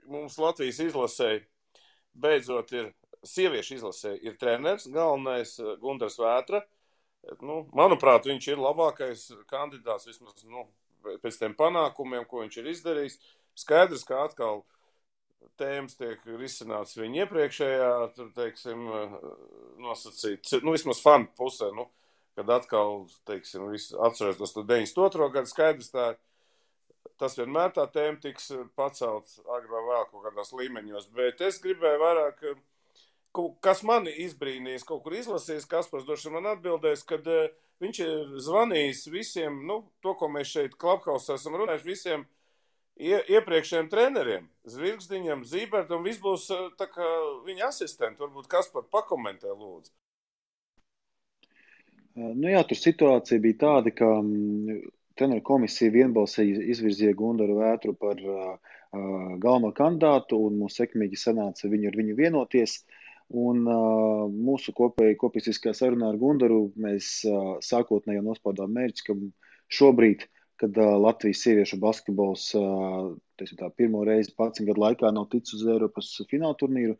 mums Latvijas izlasē beidzot ir sieviešu izlasē ir treneris, galvenais Gundars Vētra. Manuprāt, viņš ir labākais kandidāts vismaz pēc tiem panākumiem, ko viņš ir izdarījis. Skaidrs, ka atkal tēmas tiek risināts viņa iepriekšējā, teiksim, nosacīt, vismaz fanu pusē, kad atkal, teiksim, atceros tos 92. gadu, skaidrs tas vienmēr tā tēma tiks pacelt agrāk vai vēl kaut kādās līmeņos, bet es gribēju vairāk, kas mani izbrīnījis, kaut kur izlasījis, Kaspars droši man atbildēs, kad viņš ir zvanījis visiem, to, ko mēs šeit Klubhausā esam runājuši, visiem iepriekšējiem treneriem, Zvirgzdiņam, Zībertam, viss būs tā kā viņa asistenti. Varbūt Kaspar pakomentē, lūdzu. Jā, tur situācija bija tāda, ka treneru komisija vienbalsīgi izvirzīja Gundaru Vētru par galveno kandidātu, un mums sekmīgi sanāca ar viņu vienoties. Un mūsu kopīsiskā sarunā ar Gundaru mēs sākotnēji nospraudām mērķi, ka šobrīd, kad Latvijas sieviešu basketbols pirmo reizi 11 gadu laikā nav ticis uz Eiropas fināla turnīru,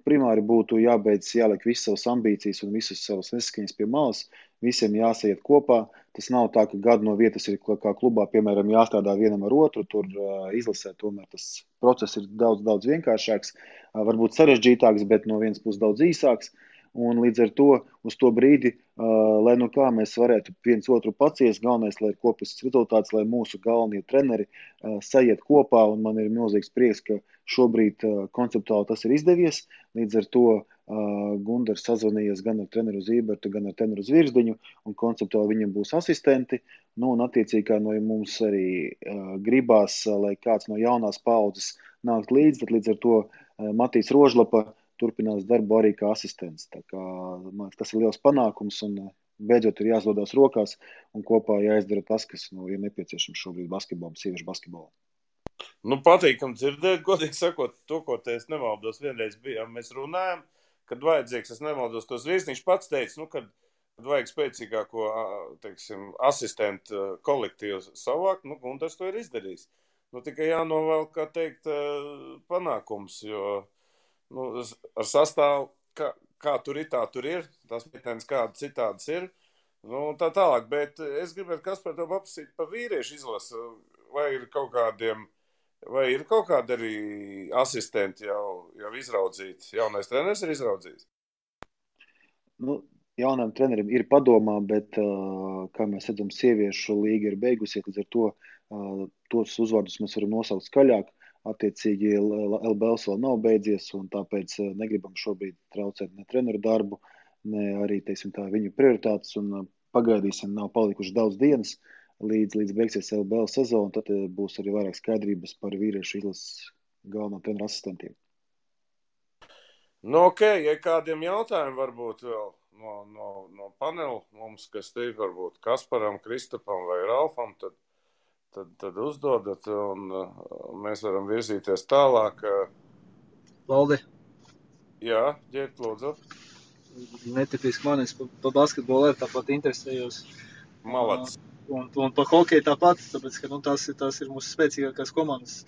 primāri būtu jāliek visas savas ambīcijas un visas savas nesaskaņas pie malas, visiem jāsaiet kopā. Tas nav tā, ka gadu no vietas ir kā klubā, piemēram, jāstrādā vienam ar otru, tur izlasē tomēr tas process ir daudz vienkāršāks, varbūt sarežģītāks, bet no vienas puses daudz īsāks. Un līdz ar to uz to brīdi, lai nu kā mēs varētu viens otru paciest, galvenais, lai ir kopīgs rezultāts, lai mūsu galvenie treneri sajiet kopā, un man ir milzīgs prieks, ka šobrīd konceptuāli tas ir izdevies. Līdz ar to Gundars sazvanījies gan ar treneru Zībertu, gan ar treneru Zvirzdiņu, un konceptuāli viņam būs asistenti. Nu, un attiecīgi, kā no mums arī gribās, lai kāds no jaunās paudzes nākt līdz, tad līdz ar to Matīs Rožlapa turpinās darbu arī kā asistents. Tā kā, man, tas ir liels panākums, un beidzot ir jāsdodās rokās, un kopā jāizdara tas, kas ir nepieciešams šobrīd basketbolam, sieviešu basketbolam. Nu, patīkam dzirdēt, godīgi sakot, to, ko te es nemaldos, vienreiz bijām, mēs runājam, kad vajadzīgs, es nemaldos, tos Virsniņš pats teica, kad vajag spēcīgāko, teiksim, asistentu kolektīvu savākt, Gundars to ir izdarījis. Tikai jānovēl, kā teikt, panākums, jo ar sastāvu, kā tur ir, tā tur ir, tās meitenes kāda citādas ir, tā tālāk, bet es gribētu Kaspar tev paprasīt par vīriešu izlasu, vai ir kaut kādi arī asistenti jau izraudzīti, jaunais treneris ir izraudzīts? Jaunam trenerim ir padomā, bet, kā mēs redzam, sieviešu līga ir beigusies, līdz ar to tos uzvārdus mēs varam nosaukt skaļāk. Attiecīgi LBLs vēl nav beidzies, un tāpēc negribam šobrīd traucēt ne treneru darbu, ne arī, teiksim tā, viņu prioritātes, un pagaidīsim, nav palikuši daudz dienas, līdz beigsies LBL sezona, tad būs arī vairāk skaidrības par vīriešu izlases galvenā treneru asistentiem. Ok, ja kādiem jautājumiem varbūt vēl no panela mums, kas te ir varbūt Kasparam, Kristapam vai Ralfam, tad uzdodat, un mēs varam virzīties tālāk. Valdi. Jā, ģēt, lūdzu. Netipiski man, es pa basketbolu tāpat interesējos. Malacis. Un pa hokeju tāpat, tāpēc, ka tās ir mūsu spēcīgākās komandas.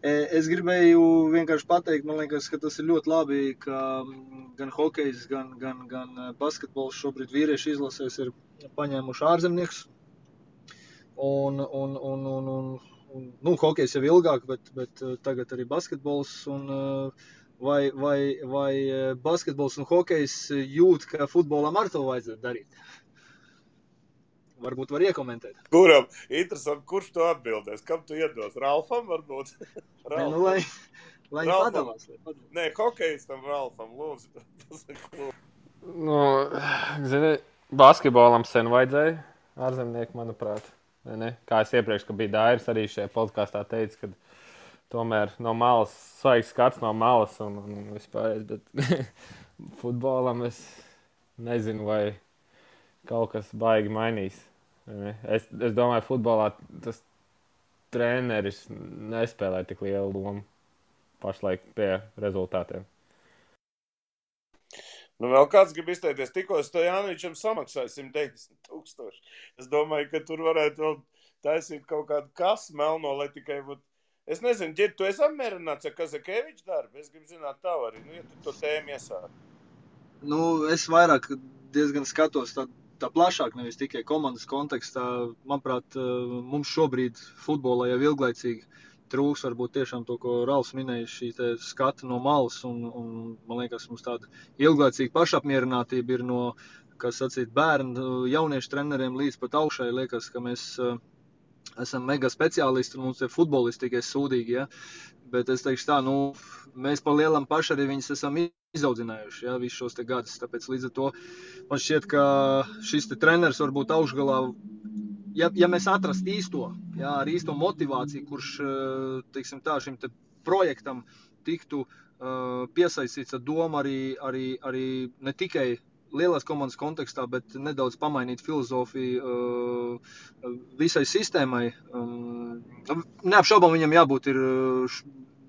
Es gribēju vienkārši pateikt, man liekas, ka tas ir ļoti labi, ka gan hokejs, gan basketbols šobrīd vīriešu izlasēs ir paņēmuši ārzemniekus. Un hokejs jau ilgāk, bet tagad arī basketbols. Vai basketbols un hokejs jūt, ka futbolam ar to vajadzētu darīt? Varbūt var iekomentēt. Kuram? Interesanti, kurš to atbildēs? Kam tu iedos? Ralfam varbūt? Ralfam. Lai viņi padalās. Nē, hokejs tam Ralfam, lūdzu. Zini, basketbolam sen vajadzēja ārzemnieku, manuprāt. Ne? Kā es iepriekš, ka bija Dairis arī šajā podkāstā teica, ka tomēr no malas, svaigs skats no malas un vispār, bet futbolam es nezinu, vai kaut kas baigi mainīs. Es domāju, futbolā tas treneris nespēlē tik lielu lomu pašlaik pie rezultātiem. Vēl kāds grib izteikties, tikko Stojanovičam samaksāja 190,000. Es domāju, ka tur varētu vēl taisīt kaut kādu kasu melno, lai tikai būtu. Es nezinu, Ģir, tu esi apmierināts ar Kazakeviča darbu? Es gribu zināt tavu arī, ja tu to tēmu iesāki. Es vairāk diezgan skatos tā plašāk, nevis tikai komandas kontekstā. Manuprāt, mums šobrīd futbolā jau ilglaicīgi trūks varbūt tiešām to, ko Ralfs minēja, šī skata no malas, un man liekas, mums tāda ilglaicīga pašapmierinātība ir no, kas sacīt, bērnu, jauniešu treneriem līdz pat augšai. Liekas, ka mēs esam mega speciālisti, un mums ir futbolisti tikai sūdīgi, ja? Bet es teikšu tā, mēs pa lielam paši arī viņus esam izaudzinājuši, ja, visus šos te gadus, tāpēc līdz ar to man šķiet, ka šis te treneris varbūt augšgalā, ja mēs atrast īsto, jā, ar īsto motivāciju, kurš, teiksim tā, šim te projektam tiktu piesaistīts ar domu arī ne tikai lielās komandas kontekstā, bet nedaudz pamainīt filozofiju visai sistēmai. Neapšaubām viņam jābūt ir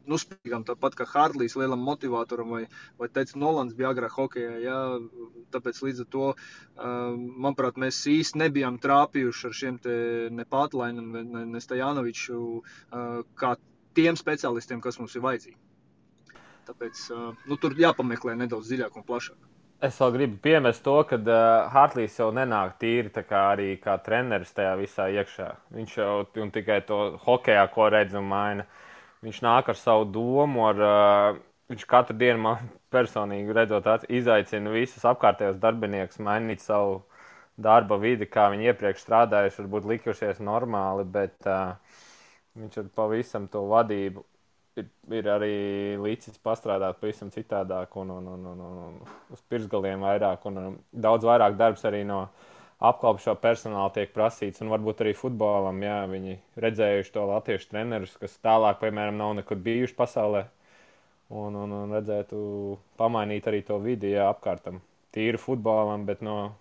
spīgam, tāpat kā Hārtlīs lielam motivātoram vai teica Nolans bija agrāk hokejā, jā, tāpēc līdz ar to, manuprāt, mēs īsti nebijām trāpījuši ar šiem te ne Pātlainam, ne Stojanoviču, kā tiem speciālistiem, kas mums ir vajadzīgi. Tāpēc, tur jāpameklē nedaudz dziļāk un plašāk. Es vēl gribu piemest to, ka Hartlīs jau nenāk tīri tā kā arī kā treneris tajā visā iekšā. Viņš jau un tikai to hokejā, ko redz un maina. Viņš nāk ar savu domu, viņš katru dienu man personīgi redzot, izaicina visus apkārtējos darbiniekus mainīt savu darba vidi, kā viņi iepriekš strādājuši, varbūt likušies normāli, bet viņš ar pavisam to vadību ir arī līdzis pastrādāt pavisam citādāk un uz pirksgaliem vairāk un daudz vairāk darbs arī no apkalpošā personāla tiek prasīts un varbūt arī futbolam, jā, viņi redzējuši to latviešu trenerus, kas tālāk, piemēram, nav nekur bijuši pasaulē un redzētu pamainīt arī to vidi, jā, apkārtam. Tīri futbolam, bet no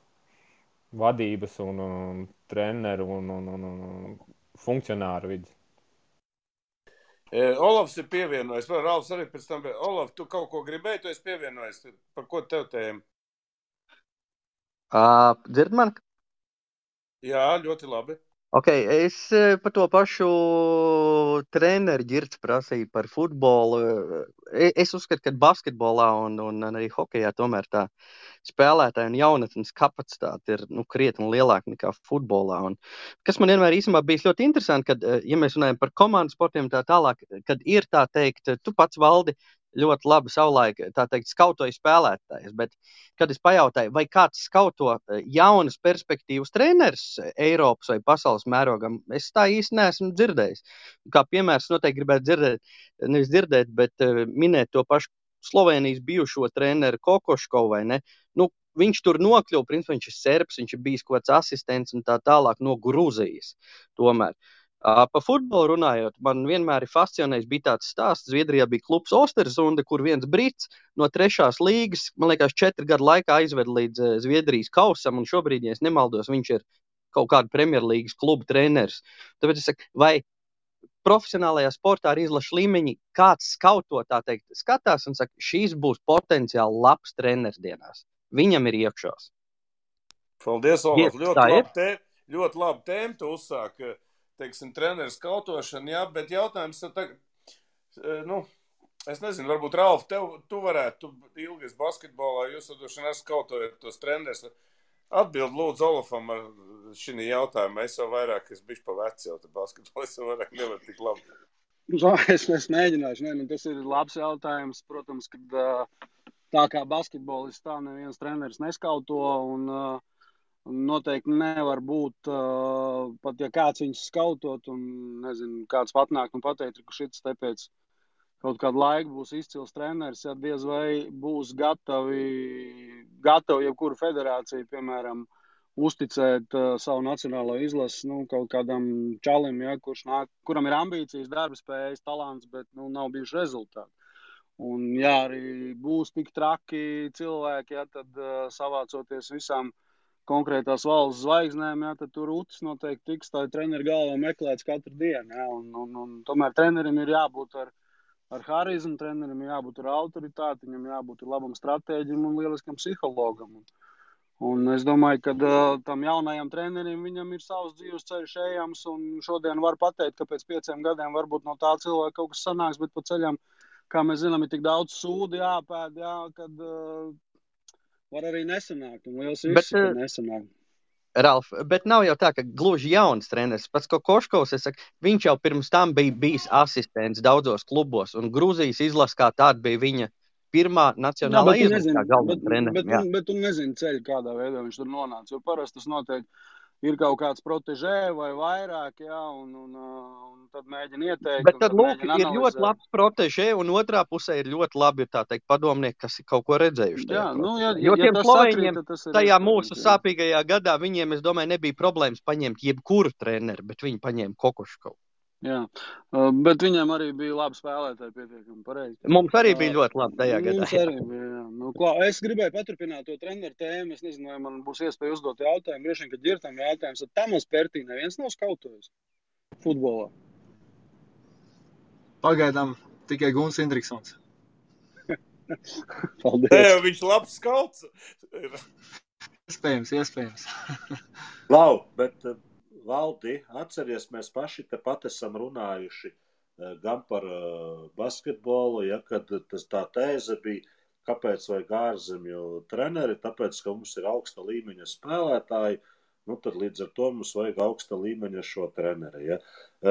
vadības un treneru un funkcionāru vidas. Olavs ir pievienojis, vai Ralfs arī pēc tam, Olav, tu kaut ko gribēji, tu esi pievienojis, par ko tev tēma? Dzird man? Jā, ļoti labi. Ok, es par to pašu treneru Girts prasīju par futbolu. Es uzskatu, ka basketbolā un arī hokejā tomēr tā spēlētāja un jaunatnes kapacitāte ir krietni lielāka nekā futbolā. Un kas man vienmēr īstenībā bijis ļoti interesanti, kad, ja mēs runājam par komandu sportiem tā tālāk, kad ir tā teikt, tu pats Valdi ļoti labi savulaik, tā teikt, skautoja spēlētājs, bet kad es pajautāju, vai kāds skauto jaunas perspektīvas treneris Eiropas vai pasaules mērogam, es tā īsti neesmu dzirdējis. Kā piemērs noteikti gribētu dzirdēt, bet minēt to pašu Slovenijas bijušo treneru Kokoškovu, vai ne? Viņš tur nokļuva, principā viņš ir serbs, viņš ir bijis kaut kāds asistents un tā tālāk no Gruzijas tomēr. Pa futbolu runājot, man vienmēr ir fascinējis, bija tāds stāsts, Zviedrijā bija klubs Ostersunda, kur viens brits no 3. līgas, man liekas, 4 gadu laikā aizved līdz Zviedrijas kausam, un šobrīd, ja es nemaldos, viņš ir kaut kāda Premjerlīgas kluba treneris. Tāpēc es saku, vai profesionālajā sportā ar izlašu līmeņi kāds skauto, tā teikt, skatās un saka, šīs būs potenciāli labs treneris dienās. Viņam ir iekšās. Paldies, Olaf. Ļoti labi tēma tu uzsāk, teiksim, treneru skautošana, jā, bet jautājums tagad, es nezinu, varbūt Ralf, tu varētu, tu ilgi esi basketbolā, jūs vadošana skautojat tos trenerus. Atbild lūdzu Olafam ar šī jautājumu. Es jau vairāk, es bišķi pa veci jau te basketbolā, es jau vairāk nevaru tik labi. Es mēģināšu, tas ir labs jautājums, protams, kad tā kā basketbolists tā neviens treneris neskauto un noteikti nevar būt, pat ja kāds viņus skautot un, nezinu, kāds patnāk un pateikt, ka šits te pēc kaut kādu laiku būs izcils treneris, ja diez vai būs gatavi jebkuru federāciju, piemēram, uzticēt savu nacionālo izlasi, kaut kādam čalim, ja, kuram ir ambīcijas, darba spējas, talants, bet, nav bijuši rezultāti. Un, ja arī būs tik traki cilvēki, ja, tad savācoties visām konkrētās valsts zvaigznēm, ja, tad tur utis noteikti tiks tā treneru galvā meklēts katru dienu. Ja, un tomēr trenerim ir jābūt ar harizmu, trenerim ir jābūt ar autoritāti, viņam jābūt ar labam stratēģim un lieliskam psihologam. Un es domāju, ka tam jaunajam trenerim viņam ir savs dzīves ceļš ejams, un šodien var pateikt, ka pēc 5 gadiem varbūt no tā cilvēka kaut kas sanāks, bet pa ceļam, kā mēs zinām, ir tik daudz sūdi jāpēd, jā, kad var arī nesanākt, un liels risks, ka nesanākt. Ralf, bet nav jau tā, ka gluži jauns treneris. Pats Kokoškovs, es saku, viņš jau pirms tam bija bijis asistents daudzos klubos, un Gruzijas izlase kā tāda bija viņa pirmā nacionālā izlase kā galvenā treneris. Bet tu nezini ceļu, kādā veidā viņš tur nonāca, jo parasti tas noteikti ir kaut kāds protežē vai vairāk, jā, un tad mēģina ieteikt. Bet tad, lūk, ir ļoti labs protežē, un otrā pusē ir ļoti labi, tā teikt, padomnieki, kas ir kaut ko redzējuši. Jo tiem slovēņiem tajā mūsu sāpīgajā gadā, viņiem, es domāju, nebija problēmas paņemt jebkuru treneri, bet viņi paņēma Kokoškovu. Jā, bet viņiem arī bija labi spēlētāji pietiekami pareizi. Mums arī bija ļoti labi tajā gadā. Mums arī bija, jā. Es gribēju paturpināt to treneru tēmu, es nezinu, vai man būs iespēja uzdot jautājumu, droši vien, kad Girtam jautājums, tad Tamas Pertī neviens nav skautojis futbolā. Pagaidām tikai Guns Indriksons. Paldies. Viņš labs skauts. Iespējams. Lau, bet Valdi, atceries, mēs paši tepat esam runājuši gan par basketbolu, ja, kad tā tēze bija, kāpēc vajag ārzemju treneri, tāpēc, ka mums ir augsta līmeņa spēlētāji, nu tad līdz ar to mums vajag augsta līmeņa šo treneri. Ja?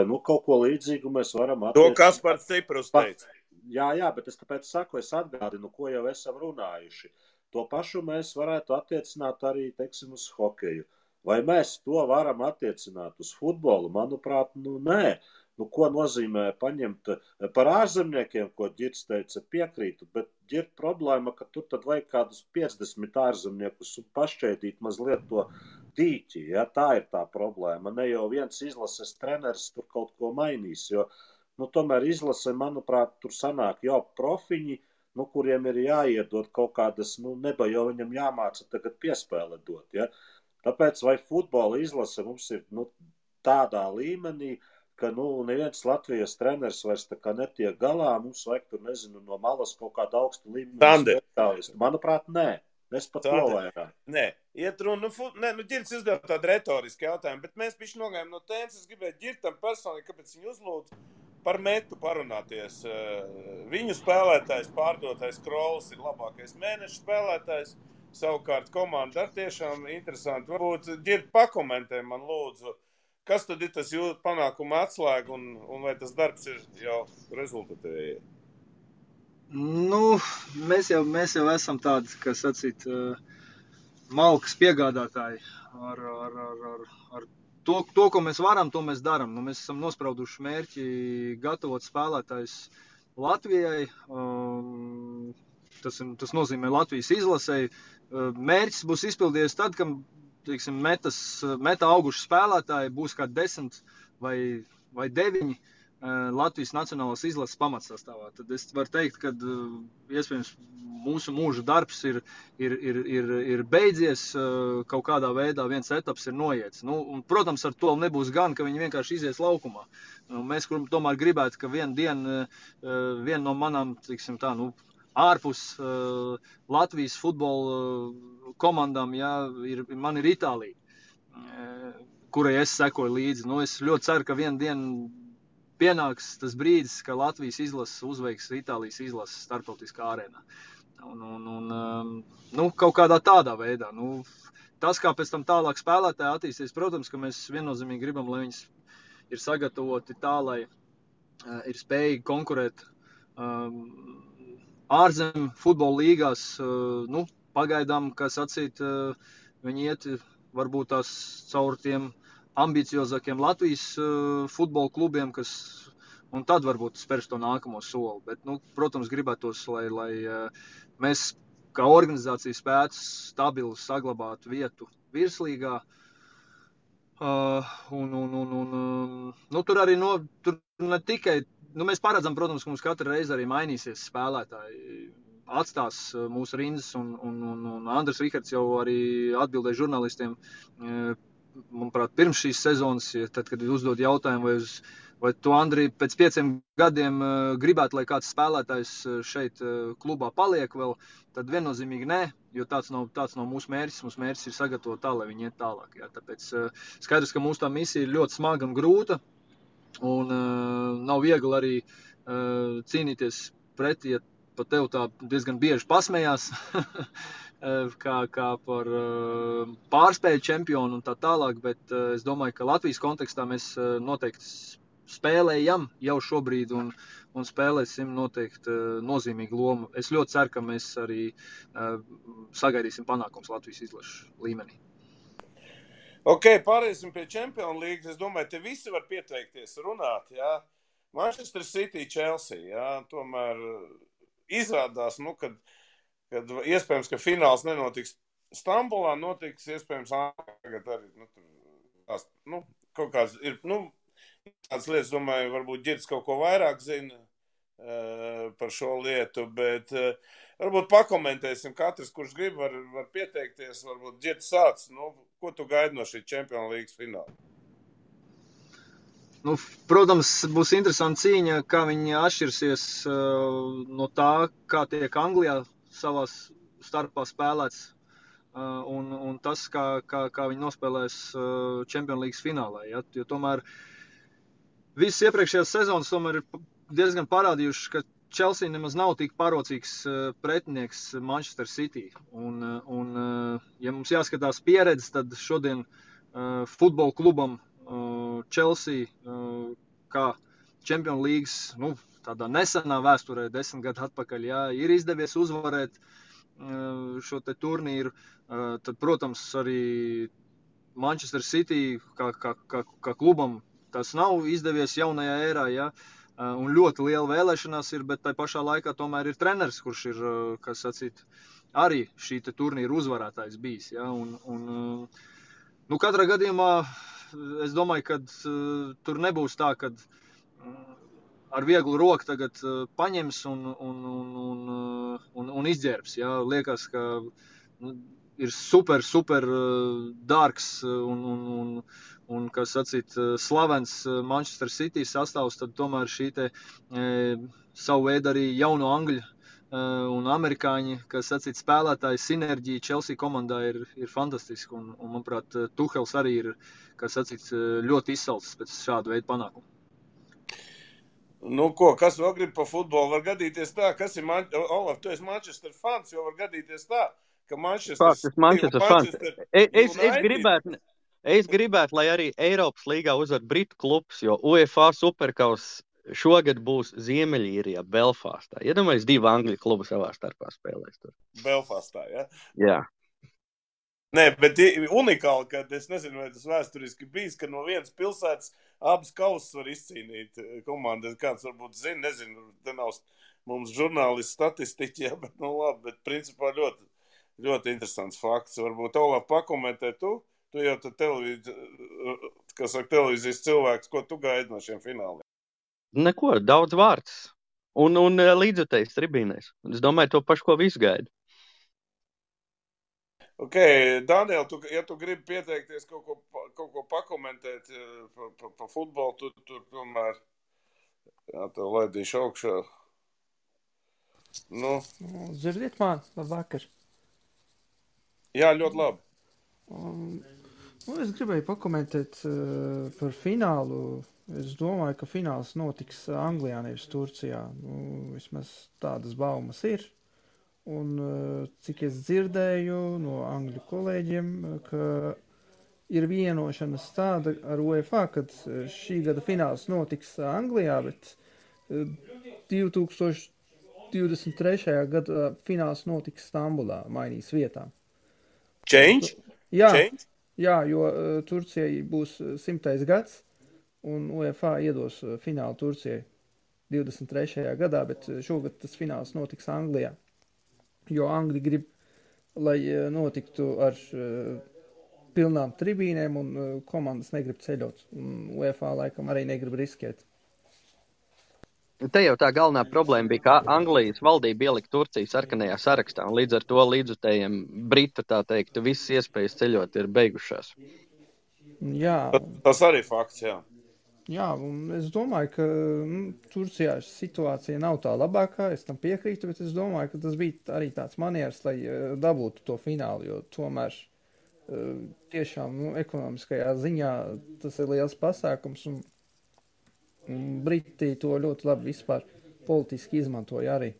Nu, kaut ko līdzīgu mēs varam To Kaspars Ciprus teica. Jā, bet es tāpēc saku, es atgādinu, ko jau esam runājuši. To pašu mēs varētu attiecināt arī, teiksim, uz hokeju. Vai mēs to varam attiecināt uz futbolu? Manuprāt, nu nē. Nu, ko nozīmē paņemt par ārzemniekiem, ko Ģirds teica, piekrītu, bet Ģird problēma, ka tur tad vajag kādus 50 ārzemniekus un pašķēdīt mazliet to dīķi, ja? Tā ir tā problēma. Ne jau viens izlases treneris tur kaut ko mainīs, jo, nu, tomēr izlase, manuprāt, tur sanāk jau profiņi, nu, kuriem ir jāiedod kaut kādas, nu, neba jau viņam jāmāca tagad piespēle dot, ja? Tāpēc vai futbola izlase mums ir, nu, tādā līmenī, ka, nu, neviens Latvijas treneris vairs tā kā netiek galā, mums vajag tur, nezinu, no malas kaut kādu augstu līmeni speciālistu. Manuprāt, nē. Es pat to vairāk. Nē, iet runa, nu, Ģirds uzdeva tādu retorisku jautājumu, bet mēs bišķi nogājām no tēmas, es gribēju Ģirtam personīgi, kāpēc viņu uzlūdzu par Metu parunāties. Viņu spēlētājs, pārdotais Krols ir labākais mēneša spēlētājs, savukārt komanda ar tiešām interesanti. Varbūt Ģirt pakomentē man lūdzu, kas tad ir tas jūsu panākuma atslēga un vai tas darbs ir jau rezultatīvi? Nu, mēs jau esam tādi, kas sacīt, malkas piegādātāji ar to, ko mēs varam, to mēs daram. Nu, mēs esam nosprauduši mērķi gatavot spēlētājus Latvijai. Tas nozīmē Latvijas izlasei. Mērķis būs izpildījies tad, kad, teiksim, meta auguši spēlētāji būs kā 10 vai 9 Latvijas nacionālās izlases pamatsastāvā. Tad es varu teikt, ka iespējams mūsu mūža darbs ir beidzies, kaut kādā veidā viens etaps ir noiets. Nu, un, protams, ar to nebūs gan, ka viņi vienkārši izies laukumā. Mēs tomēr gribētu, ka viena no manām, teiksim tā, nu, ārpus Latvijas futbola komandām, jā, man ir Itālija, kurai es sekoju līdzi. Nu, es ļoti ceru, ka vienu dienu pienāks tas brīdis, ka Latvijas izlases uzveiks Itālijas izlases starptautiskā arēnā. Nu, kaut kādā tādā veidā. Nu, tas, kā pēc tam tālāk spēlētāji attīsties, protams, ka mēs viennozīmīgi gribam, lai viņas ir sagatavoti tā, lai ir spējīgi konkurēt ārzem futbola līgās. Nu, pagaidām, kā sacīt, viņi iet varbūt tās caur tiem ambiciozākiem Latvijas futbola klubiem, un tad varbūt spērs to nākamo soli. Bet, nu, protams, gribētos, lai mēs kā organizācija spētu stabili saglabāt vietu virslīgā. Nu, tur arī tur ne tikai, nu, mēs paredzam, protams, ka mums katru reizi arī mainīsies spēlētāji. Atstās mūsu rindas, un Andris Rihards jau arī atbildēja žurnālistiem, manuprāt, pirms šīs sezonas, tad, kad uzdod jautājumu, vai tu, Andri, pēc 5 gadiem gribētu, lai kāds spēlētājs šeit klubā paliek vēl, tad viennozīmīgi nē, jo tāds nav mūsu mērķis. Mūsu mērķis ir sagatavot tā, lai viņi iet tālāk. Jā. Tāpēc skaidrs, ka mūsu tā misija ir ļoti smaga un grūta, un nav viegli arī cīnīties pretī, ja pa tev tā diezgan bieži pasmējās, kā par pārspēļu čempionu un tā tālāk, bet es domāju, ka Latvijas kontekstā mēs noteikti spēlējam jau šobrīd un spēlēsim noteikti nozīmīgu lomu. Es ļoti ceru, ka mēs arī sagaidīsim panākums Latvijas izlašu līmenī. Ok, pārēsim pie Champions League. Es domāju, te visi var pieteikties runāt, jā. Manchester City, Chelsea, jā, tomēr izrādās, nu, kad iespējams, ka fināls nenotiks Stambulā, notiks iespējams tagad arī, kaut kāds ir, tādas lietas, domāju, varbūt Ģirds kaut ko vairāk zina par šo lietu, bet varbūt pakomentēsim katrs, kurš grib, var pieteikties, varbūt Ģirds sāc, ko tu gaidi no šī Champions League fināla? Nu, protams, būs interesanta cīņa, kā viņi atšķirsies no tā, kā tiek Anglijā savās starpā spēlēts, un tas, kā viņi nospēlēs Champions League finālā. Ja? Jo tomēr visas iepriekšējās sezonas tomēr ir diezgan parādījušas, ka Chelsea nemaz nav tik parocīgs pretinieks Manchester City. Un ja mums jāskatās pieredze, tad šodien futbola klubam Chelsea kā Champions Leagues, tādā nesenā vēsturē, 10 gadu atpakaļ, ir izdevies uzvarēt šo te turnīru. Tad, protams, arī Manchester City kā klubam tas nav izdevies jaunajā ērā, un ļoti liela vēlēšanās ir, bet tai pašā laikā tomēr ir treneris, kurš ir, kas sacīt, arī šī te turnīra uzvarētājs bijis, katrā gadījumā es domāju, ka tur nebūs tā, kad ar vieglu roku tagad paņems un izģērbs, liekas, ka ir super dārgs un kas sacīt, slavens Manchester City sastāvs, tad tomēr šī te savu veidu arī jauno angļu un amerikāņi, kas sacīt, spēlētāji sinerģija Chelsea komandā ir fantastiska, un manuprāt, Tuhels arī ir, kas sacīt, ļoti izsalcis pēc šādu veidu panākumu. Kas vēl grib pa futbolu? Var gadīties tā, kas ir, Olaf, tu esi Manchester fans, jo var gadīties tā, ka Manchester fans. Es gribētu, lai arī Eiropas līgā uzvar Britu klubs, jo UEFA Superkaus šogad būs Ziemeļīrijā, Belfastā. Iedomājies, 2 Angļu klubu savā starpā spēlēs tur. Belfastā, ja? Jā. Nē, bet unikāli, ka es nezinu, vai tas vēsturiski bijis, ka no vienas pilsētas abas kausas var izcīnīt komandas. Kāds varbūt zina, nezinu, te nav mums žurnālisti statistiķi, bet labi, bet principā ļoti, ļoti interesants fakts. Varbūt Olaf pakomentē tu jau televīzijas cilvēks, ko tu gaidi no šiem fināliem? Neko, daudz vārds. Un līdzutējs tribīnēs. Es domāju, to pašu, ko visu gaida. Ok, Daniel, ja tu gribi pieteikties kaut ko pakomentēt pa futbolu, tu tomēr, tev laidīšu augšā. Dzirdiet man, labvakar. Jā, ļoti labi. Es gribēju pakomentēt par finālu. Es domāju, ka fināls notiks Anglijā, nevis Turcijā. Vismaz tādas baumas ir. Un cik es dzirdēju no angļu kolēģiem, ka ir vienošanas tāda ar UEFA, kad šī gada fināls notiks Anglijā, bet 2023. gada fināls notiks Stambulā, mainīs vietām. Change? Jā, jo Turcijai būs 100. gads, un UEFA iedos finālu Turcijai 23. gadā, bet šogad tas fināls notiks Anglijā. Jo Angļi grib, lai notiktu ar pilnām tribīnēm, un komandas negrib ceļot. Un UEFA laikam arī negrib riskēt. Te jau tā galvenā problēma bija, ka Anglijas valdība ielika Turciju sarkanajā sarakstā, un līdz ar to līdzutējiem Britu, tā teikt, visas iespējas ceļot ir beigušās. Jā. Tas arī fakts, jā. Jā, un es domāju, ka Turcijā situācija nav tā labākā, es tam piekrītu, bet es domāju, ka tas bija arī tāds manieris, lai dabūtu to finālu, jo tomēr tiešām ekonomiskajā ziņā tas ir liels pasākums, un Briti to ļoti labi vispār politiski izmantoja arī.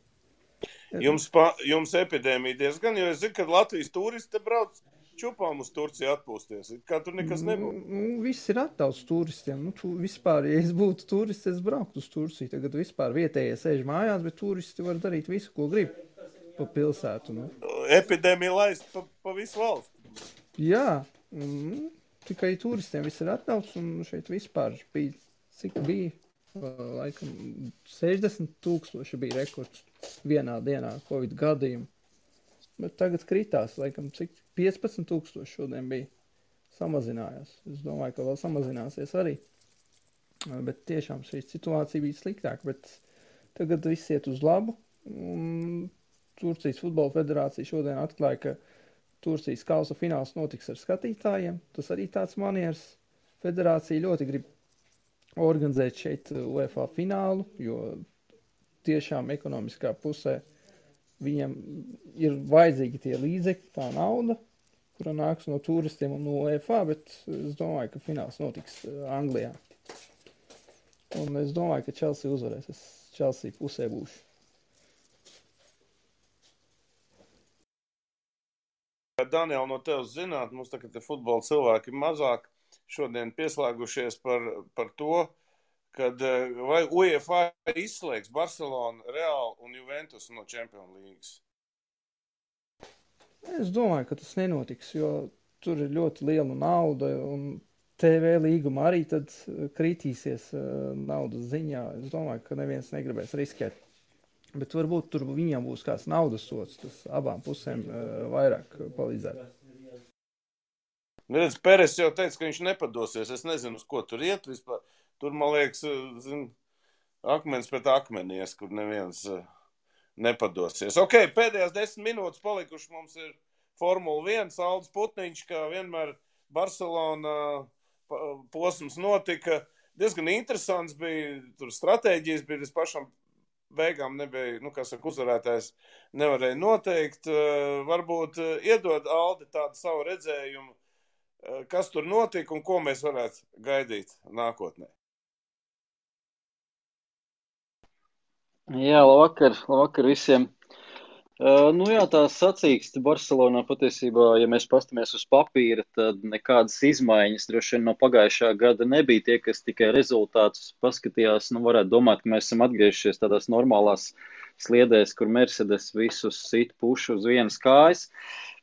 Jums epidēmija diezgan, jo es zinu, ka Latvijas turisti brauc čupām uz Turciju atpūsties. Kā tur nekas nebūtu? Viss ir attauts turistiem. Vispār, ja es būtu turists, es brauktu uz Turciju. Tagad vispār vietējie sēž mājās, bet turisti var darīt visu, ko grib pa pilsētu. Epidēmija laist pa visu valstu. Jā, tikai turistiem viss ir attauts, un šeit vispār bija, cik bija, laikam 60,000 bija rekords vienā dienā Covid gadījumu. Bet tagad kritās, laikam, cik 15,000 šodien bija, samazinājās. Es domāju, ka vēl samazināsies arī. Bet tiešām šī situācija bija sliktāka, bet tagad viss iet uz labu. Un Turcijas futbola federācija šodien atklāja, ka Turcijas kausa fināls notiks ar skatītājiem. Tas arī tāds manieris. Federācija ļoti grib organizēt šeit UEFA finālu, jo tiešām ekonomiskā pusē viņam ir vajadzīgi tie līdzekļi, tā nauda, kura nāks no turistiem un no UEFA, bet es domāju, ka fināls notiks Anglijā. Un es domāju, ka Chelsea uzvarēs. Es Chelsea pusē būšu. Daniel, no tevis zināt, mums tagad te futbola cilvēki ir mazāk šodien pieslēgušies par to, kad vai UEFA izslēgs Barcelonu, Real un Juventus no Champions Leagues? Es domāju, ka tas nenotiks, jo tur ir ļoti liela nauda un TV līguma arī tad kritīsies naudas ziņā. Es domāju, ka neviens negribēs riskēt. Bet varbūt tur viņam būs kāds naudas sots, tas abām pusēm vairāk palīdzētu. Redz, Peres jau teica, ka viņš nepadosies. Es nezinu, uz ko tur iet vispār. Tur, man liekas, akmens pret akmenies, kur neviens nepadosies. Ok, pēdējās 10 minūtes palikuši mums ir Formula 1, Aldis Putniņš, kā vienmēr Barcelona posms notika. Diezgan interesants bija, tur stratēģijas bija līdz pašam beigām nebija, uzvarētājs nevarēja noteikt. Varbūt iedod Aldi tādu savu redzējumu, kas tur notika un ko mēs varētu gaidīt nākotnē. Jā, labvakar visiem. Tā sacīkste Barcelonā patiesībā, ja mēs pastamies uz papīra, tad nekādas izmaiņas droši vien no pagājušā gada nebija. Tie, kas tikai rezultātus paskatījās, varētu domāt, ka mēs esam atgriežušies tādās normālās sliedēs, kur Mercedes visus sit pušu uz vienas kājas.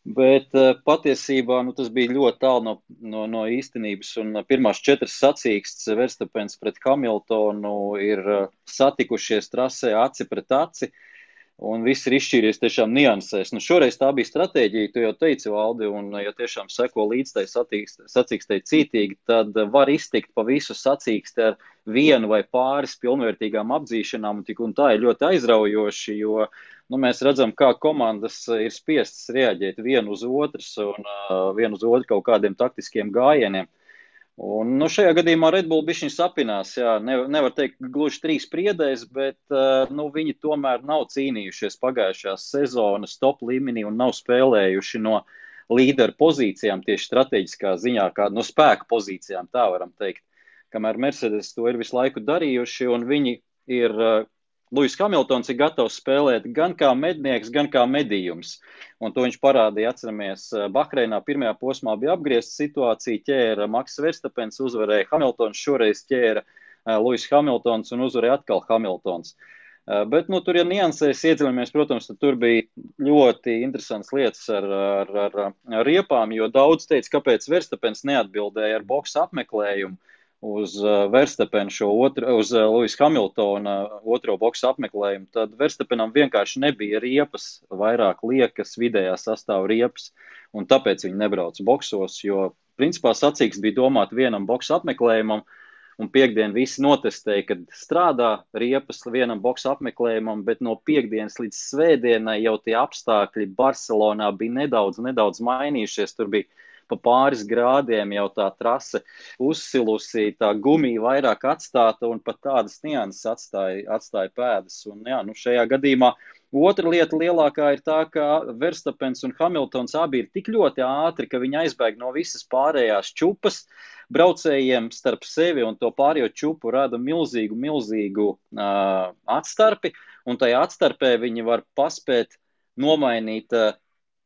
Bet patiesībā tas bija ļoti tālu no īstenības, un pirmās 4 sacīkstes Verstapens pret Hamiltonu ir satikušies trasē aci pret aci. Un viss ir izšķīries tiešām niansēs. Šoreiz tā bija stratēģija, tu jau teici, Valdi, un ja tiešām seko līdz tai sacīkstei cītīgi, tad var iztikt pa visu sacīksti ar vienu vai pāris pilnvērtīgām apdzīšanām, un tā ir ļoti aizraujoši, jo mēs redzam, kā komandas ir spiestas reaģēt vienu uz otras un vienu uz otru kaut kādiem taktiskiem gājieniem. Un šajā gadījumā Red Bull bišķiņ sapinās, jā, nevar teikt gluži 3 priedēs, bet viņi tomēr nav cīnījušies pagājušās sezonas top līmenī un nav spēlējuši no līderu pozīcijām tieši strateģiskā ziņā, kā no spēka pozīcijām, tā varam teikt. Kamēr Mercedes to ir visu laiku darījuši, un viņi ir, Lewis Hamiltons ir gatavs spēlēt gan kā mednieks, gan kā medījums. Un to viņš parādīja, atceramies, Bahreinā pirmajā posmā bija apgriezta situācija, ķēra Maks Verstapens, uzvarēja Hamiltons, šoreiz ķēra Lewis Hamiltons un uzvarēja atkal Hamiltons. Bet, tur, ja niansēs iedziļamies, protams, tad tur bija ļoti interesants lietas ar riepām, jo daudz teica, kāpēc Verstapens neatbildēja ar boksa apmeklējumu uz Verstapenu uz Lewis Hamiltona otro boksa apmeklējumu, tad Verstapenam vienkārši nebija riepas, vairāk liekas vidējā sastāva riepas, un tāpēc viņi nebrauca boksos, jo principā sacīksts bija domāt vienam boksa apmeklējumam, un piekdien visi notestēja, kad strādā riepas vienam boksa apmeklējumam, bet no piekdienas līdz svētdienai jau tie apstākļi Barcelonā bija nedaudz mainījušies, tur bija pa pāris grādiem jau tā trase uzsilusi, tā gumija vairāk atstāta un pat tādas nianses atstāja pēdas. Un, šajā gadījumā otra lieta lielākā ir tā, ka Verstapens un Hamiltons abi ir tik ļoti ātri, ka viņi aizbēg no visas pārējās čupas. Braucējiem starp sevi un to pārējo čupu rada milzīgu atstarpi, un tajā atstarpē viņi var paspēt nomainīt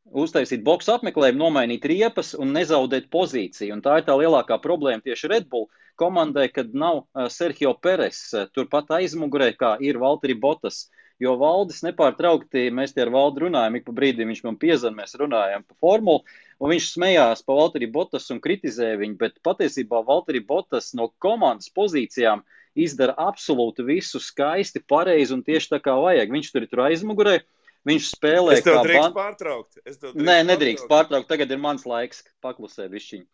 uztaisīt boksa apmeklējumu, nomainīt riepas un nezaudēt pozīciju. Un tā ir tā lielākā problēma tieši Red Bull komandai, kad nav Sergio Peres turpat aizmugurē, kā ir Valtteri Bottas. Jo Valdis nepārtraukti, mēs tie ar Valdi runājam, ik pa brīdim viņš man piezvan, mēs runājam pa formulu, un viņš smējās pa Valtteri Bottas un kritizēja viņu, bet patiesībā Valtteri Bottas no komandas pozīcijām izdara absolūti visu skaisti, pareizi un tieši tā kā vajag. Viņš tur ir aizmugurē. Viņš spēlē kā... Es tev drīkst pārtraukt. Nē, nedrīkst pārtraukt. Tagad ir mans laiks paklusēt višķiņu.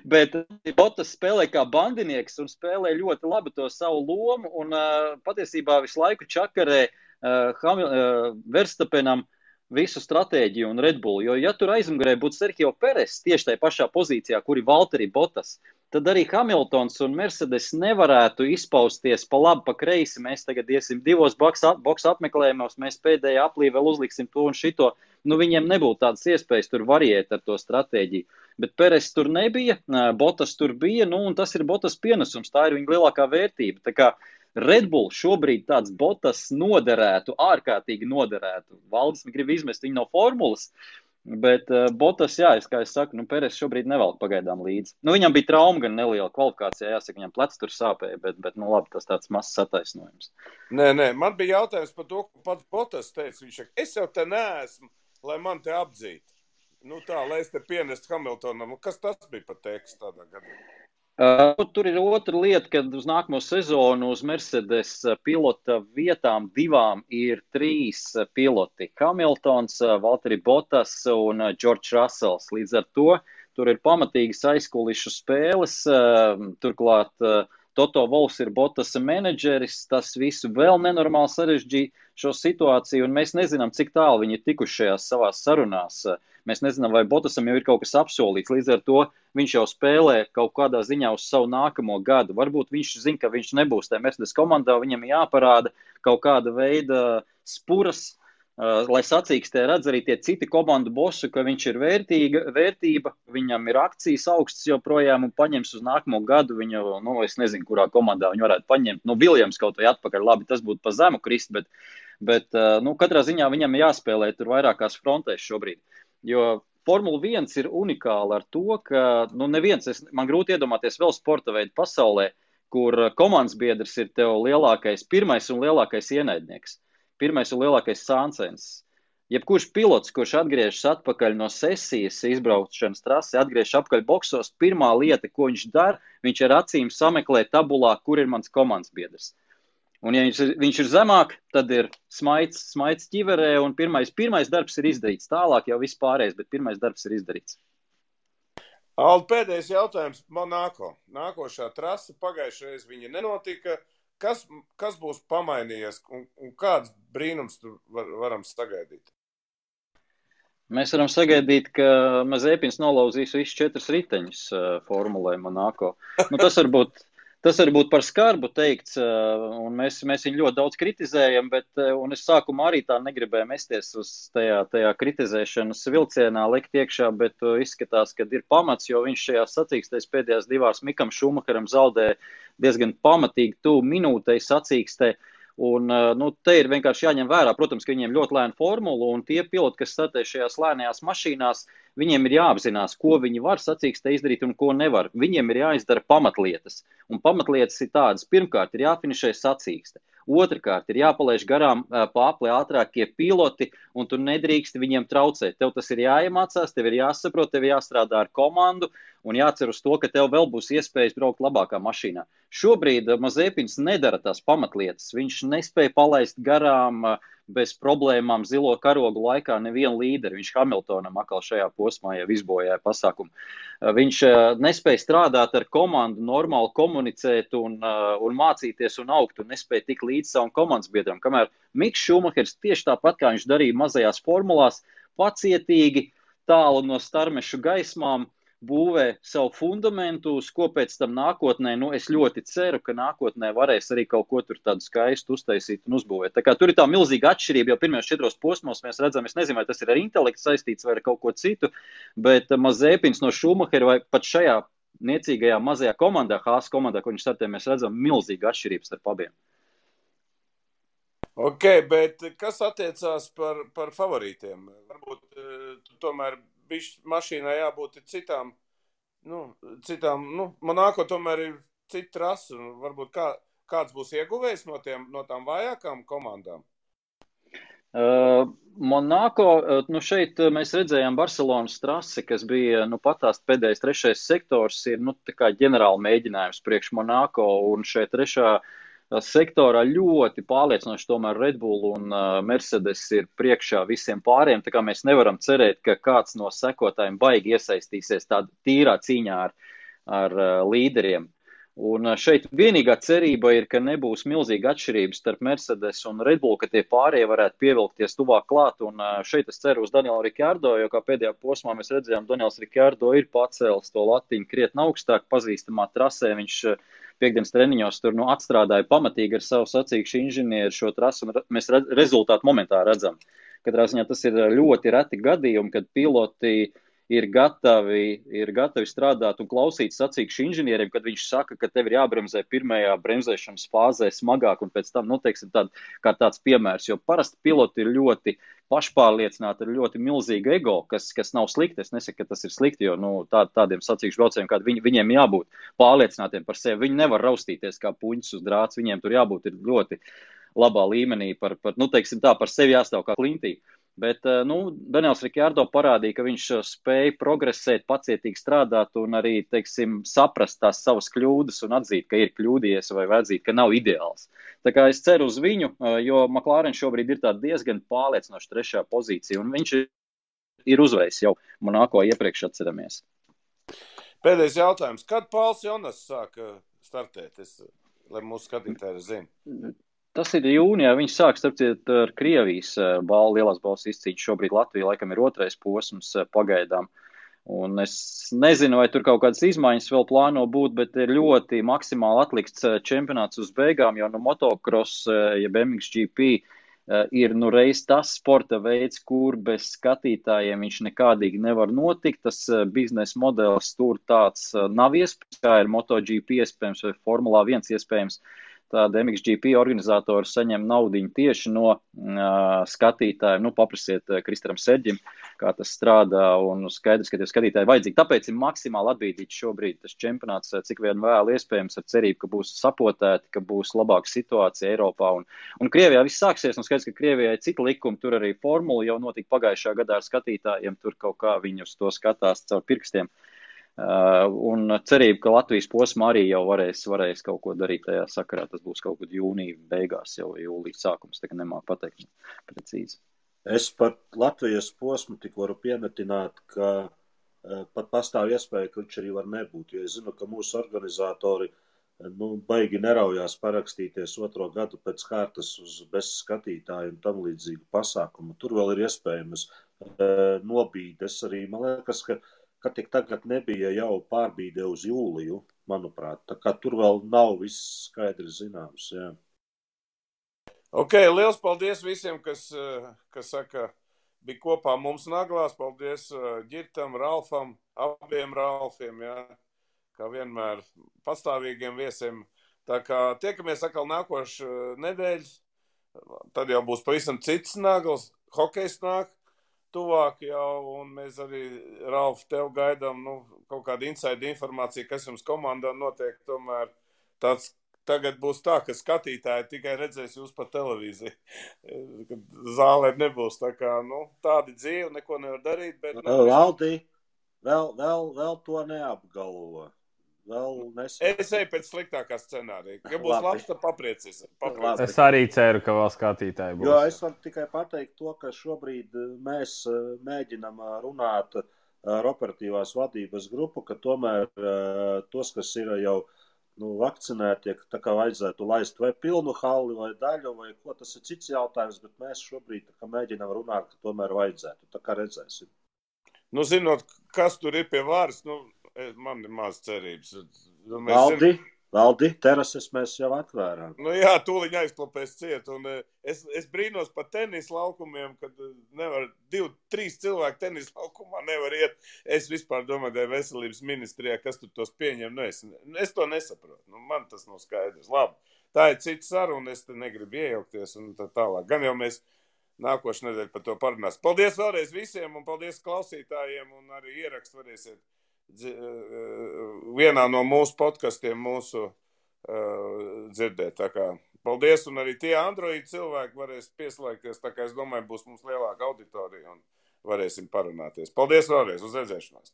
Bet Bottas spēlē kā bandinieks un spēlē ļoti labi to savu lomu un patiesībā visu laiku čakarē Verstapenam visu stratēģiju un Red Bull. Jo ja tur aizmugurē būtu Sergio Peres tieši tajā pašā pozīcijā, kur ir Valtteri Bottas, tad arī Hamiltons un Mercedes nevarētu izpausties pa labi, pa kreisi. Mēs tagad iesim 2 boksa apmeklējumos, mēs pēdējā aplī vēl uzliksim to un šito. Viņiem nebūtu tādas iespējas tur variēt ar to stratēģiju. Bet Peres tur nebija, Bottas tur bija, un tas ir Bottas pienesums, tā ir viņa lielākā vērtība. Tā kā Red Bull šobrīd tāds Bottas noderētu, ārkārtīgi noderētu. Valdis grib izmest viņu no formulas. Bet Botas, jā, kā es saku, Peres šobrīd nevelk pagaidām līdzi. Viņam bija trauma gan neliela kvalifikācijā, jāsaka, viņam plecs tur sāpēja, bet labi, tas tāds mazs attaisnojums. Nē, man bija jautājums par to, ko pats Botas teica. Viņš saka, es jau te neesmu, lai man te apdzītu. Lai es te pienestu Hamiltonam. Kas tas bija par tekstu tādā gadā? Tur ir otra lieta, kad uz nākamo sezonu uz Mercedes pilota vietām 2 ir 3 piloti. Hamiltons, Valtteri Bottas un George Russells. Līdz ar to tur ir pamatīgas aizkulišu spēles. Turklāt Toto Wolffs ir Bottasa menedžeris. Tas visu vēl nenormāli sarežģīja šo situāciju, un mēs nezinām, cik tālu viņi ir tikuši šajās savās sarunās. Mēs nezinām, vai Bottasam jau ir kaut kas apsolīts. Līdz ar to viņš jau spēlē kaut kādā ziņā uz savu nākamo gadu. Varbūt viņš zina, ka viņš nebūs tajā Mercedes komandā, viņam jāparāda kaut kāda veida spuras, lai sacīkstē redz arī tie citi komandu bosu, ka viņš ir vērtība, viņam ir akcijas augsts joprojām un paņems uz nākamo gadu viņu, es nezinu, kurā komandā viņu varētu paņemt. Williams kaut vai atpakaļ, labi, tas būtu pa zemu krist, bet katrā ziņā viņam jāspēlē tur vairākās frontēs šobrīd. Jo Formula 1 ir unikāla ar to, ka man grūti iedomāties vēl sporta veidu pasaulē, kur komandas biedrs ir tev pirmais un lielākais ienaidnieks, pirmais un lielākais sāncens. Jebkurš pilots, kurš atgriežas atpakaļ no sesijas izbraukšanas trasi, atgriežas apakaļ boksos, pirmā lieta, ko viņš dara, viņš ar acīm sameklē tabulā, kur ir mans komandas biedrs. Un ja viņš ir zemāk, tad ir smaids ķiverē, un pirmais darbs ir izdarīts. Tālāk jau viss pārējais, bet pirmais darbs ir izdarīts. Aldi, pēdējais jautājums Monako. Nākošā trasa pagājušajā viņa nenotika. Kas būs pamainījies un kāds brīnums tur varam sagaidīt? Mēs varam sagaidīt, ka Mazepins nolauzīs visus 4 riteņus formulē Monako. Tas varbūt par skarbu teikts, un mēs viņu ļoti daudz kritizējam, un es sākumā arī tā negribēju mesties uz tajā kritizēšanas vilcienā likt iekšā, bet izskatās, ka ir pamats, jo viņš šajā sacīkstēs pēdējās 2 Mikam Šumacheram zaudēja diezgan pamatīgi tuvu minūtei sacīkstē. Un, te ir vienkārši jāņem vērā, protams, ka viņiem ļoti lēna formula, un tie piloti, kas startē šajās lēnajās mašīnās, viņiem ir jāapzinās, ko viņi var sacīkstē izdarīt un ko nevar. Viņiem ir jāizdara pamatlietas, un pamatlietas ir tādas. Pirmkārt, ir jāfinišē sacīkste. Otrakārt, ir jāpalaiž garām pāpli ātrākie piloti, un tu nedrīksti viņiem traucēt. Tev tas ir jāiemācās, tev ir jāsaprot, tev ir jāstrādā ar komandu, un jācer uz to, ka tev vēl būs iespējas braukt labākā mašīnā. Šobrīd Mazepins nedara tās pamatlietas. Viņš nespēja palaist garām bez problēmām zilo karogu laikā nevienu līderi. Viņš Hamiltonam atkal šajā posmā jau izbojāja pasākumu. Viņš nespēja strādāt ar komandu, normāli komunicēt un mācīties un augt, un nespēja tik līdz savam komandas biedram. Kamēr Miks Šumahers tieši tāpat, kā viņš darīja mazajās formulās, pacietīgi, tālu no starmešu gaismām, būvē savu fundamentu, uz ko pēc tam nākotnē, es ļoti ceru, ka nākotnē varēs arī kaut ko tur tādu skaistu uztaisīt un uzbūvēt. Tā kā tur ir tā milzīga atšķirība, jo pirmajos 4 posmos mēs redzam, es nezinu, vai tas ir ar intelektu saistīts vai ar kaut ko citu, bet Mazepins no Šumahera vai pat šajā niecīgajā mazajā komandā, Haas komandā, ko viņš startē, mēs redzam milzīgu atšķirību starp abiem. Ok, bet kas attiecās par favorītiem? Varbūt tomēr mašīnai jābūt citām, Monako tomēr ir cita trasa, un varbūt kāds būs ieguvējis no tām vājākām komandām? Monako, šeit mēs redzējām Barcelonas trasi, kas bija, patās pēdējais 3. sektors ir, tā kā ģenerāla mēģinājums priekš Monako, un šeit 3. sektorā ļoti pārliecinoši tomēr Red Bull un Mercedes ir priekšā visiem pāriem, tā kā mēs nevaram cerēt, ka kāds no sekotājiem baigi iesaistīsies tādā tīrā cīņā ar līderiem. Un šeit vienīgā cerība ir, ka nebūs milzīga atšķirības starp Mercedes un Red Bull, ka tie pārējie varētu pievilkties tuvāk klāt, un šeit es ceru uz Danielu Ricciardo, jo kā pēdējā posmā mēs redzējām, Daniels Ricciardo ir pacēlis to latiņu krietni augstāk, pazīstamā trasē, viņš piekdienas treniņos tur atstrādāja pamatīgi ar savu sacīkšu inženieru šo trasu, un mēs rezultātu momentā redzam. Katrā ziņā tas ir ļoti reti gadījumi, kad piloti ir gatavi strādāt un klausīt sacīkšu inženieriem, kad viņš saka, ka tev ir jābremzē pirmajā bremzēšanas fāzē smagāk un pēc tam, teiksim, kā tāds piemērs, jo parasti piloti ir ļoti pašpārliecināti, ir ļoti milzīga ego, kas nav slikti. Es nesaku, ka tas ir slikti, jo tādiem sacīkšu braucējiem, kādi viņiem jābūt pārliecinātiem par sevi. Viņi nevar raustīties kā puņķis uz drāts, viņiem tur jābūt ir ļoti labā līmenī par sevi jāstāv kā klintī. Bet, Daniels Ricciardo parādīja, ka viņš spēja progresēt, pacietīgi strādāt un arī, teiksim, saprast tās savas kļūdas un atzīt, ka ir kļūdījies vai atzīt, ka nav ideāls. Tā kā es ceru uz viņu, jo McLaren šobrīd ir tā diezgan pārliecinoša 3. pozīcija un viņš ir uzvējis jau Monako iepriekš atceramies. Pēdējais jautājums. Kad Pauls Jonas sāka startēt, lai mūsu skatītāji zina? Tas ir jūnijā, viņš sāk starpciet ar Krievijas lielās balvas izcīņu. Šobrīd Latvija laikam ir 2. posms pagaidām. Un es nezinu, vai tur kaut kādas izmaiņas vēl plāno būt, bet ir ļoti maksimāli atlikts čempionāts uz beigām, jo motocross, jeb MXGP, ir reiz tas sporta veids, kur bez skatītājiem viņš nekādīgi nevar notikt. Tas biznesa modelis tur tāds nav iespējams, kā ir MotoGP iespējams vai Formulā 1 iespējams. Tāda MXGP organizatori saņem naudiņu tieši no skatītājiem. Paprasiet Kristaram Serģim, kā tas strādā, un skaidrs, ka tie skatītāji vajadzīgi. Tāpēc ir maksimāli atbīdīts šobrīd tas čempionāts, cik vien vēl iespējams, ar cerību, ka būs sapotēti, ka būs labāka situācija Eiropā. Un Krievijā viss sāksies, un skaidrs, ka Krievijai cita likuma, tur arī formula jau notika pagājušā gadā ar skatītājiem, tur kaut kā viņi uz to skatās caur pirkstiem. Un cerību, ka Latvijas posmā arī jau varēs kaut ko darīt tajā sakarā. Tas būs kaut kad jūnija beigās, jau jūlijas sākums, tā kā nemāk pateikt precīzi. Es par Latvijas posmu tik varu piemetināt, ka pat pastāv iespēja, ka viņš arī var nebūt, jo es zinu, ka mūsu organizatori baigi neraujās parakstīties 2. gadu pēc kārtas uz bez skatītāju un tam līdzīgu pasākumu. Tur vēl ir iespējams nobīdes arī, man liekas, ka tik tagad nebija jau pārbīde uz jūliju, manuprāt. Tā kā tur vēl nav viss skaidrs zināms, jā. Ok, liels paldies visiem, kas saka, bija kopā mums Naglās. Paldies Ģirtam, Ralfam, abiem Ralfiem, jā. Kā vienmēr pastāvīgiem viesiem. Tā kā tiekamies atkal nākošu nedēļu. Tad jau būs pavisam cits Nagls, hokejs nāk. Tuvāk jau, un mēs arī, Ralf, tev gaidām kaut kādu inside informāciju, kas jums komandā notiek. Tomēr tāds tagad būs tā, ka skatītāji tikai redzēs jūs pa televīziju, kad zālē nebūs. Tā kā, tādi dzīvi, neko nevar darīt. Bet, Valdi, vēl to neapgalvo. Es eju pēc sliktākā scenārija. Ja būs labs, tad papriecies. Es arī ceru, ka vēl skatītāji būs. Jo es varu tikai pateikt to, ka šobrīd mēs mēģinam runāt ar operatīvās vadības grupu, ka tomēr tos, kas ir jau vakcinēti, tā kā vajadzētu laist vai pilnu halli vai daļu, vai ko, tas ir cits jautājums, bet mēs šobrīd mēģinam runāt, ka tomēr vajadzētu. Tā kā redzēsim. Zinot, kas tur ir pie varas, man ir maz cerības. Valdi, terases mēs jau atvērām. Jā, tūliņ aizklapēs ciet. Un es brīnos par tenis laukumiem, kad nevar 2-3 cilvēki tenis laukumā nevar iet. Es vispār domāju, ka veselības ministrijā, kas tur tos pieņem, es to nesaprotu. Man tas nav skaidrs. Labi, tā ir cita saruna, es te negribu iejaukties un tā tālāk. Gan jau mēs nākošu nedēļu par to parunās. Paldies vēlreiz visiem un paldies klausītājiem un arī ierakstu varēsiet vienā no mūsu podkastiem dzirdēt. Tā kā paldies, un arī tie Android cilvēki varēs pieslēgties, tā kā es domāju, būs mums lielāka auditorija un varēsim parunāties. Paldies vēlreiz, uz redzēšanās!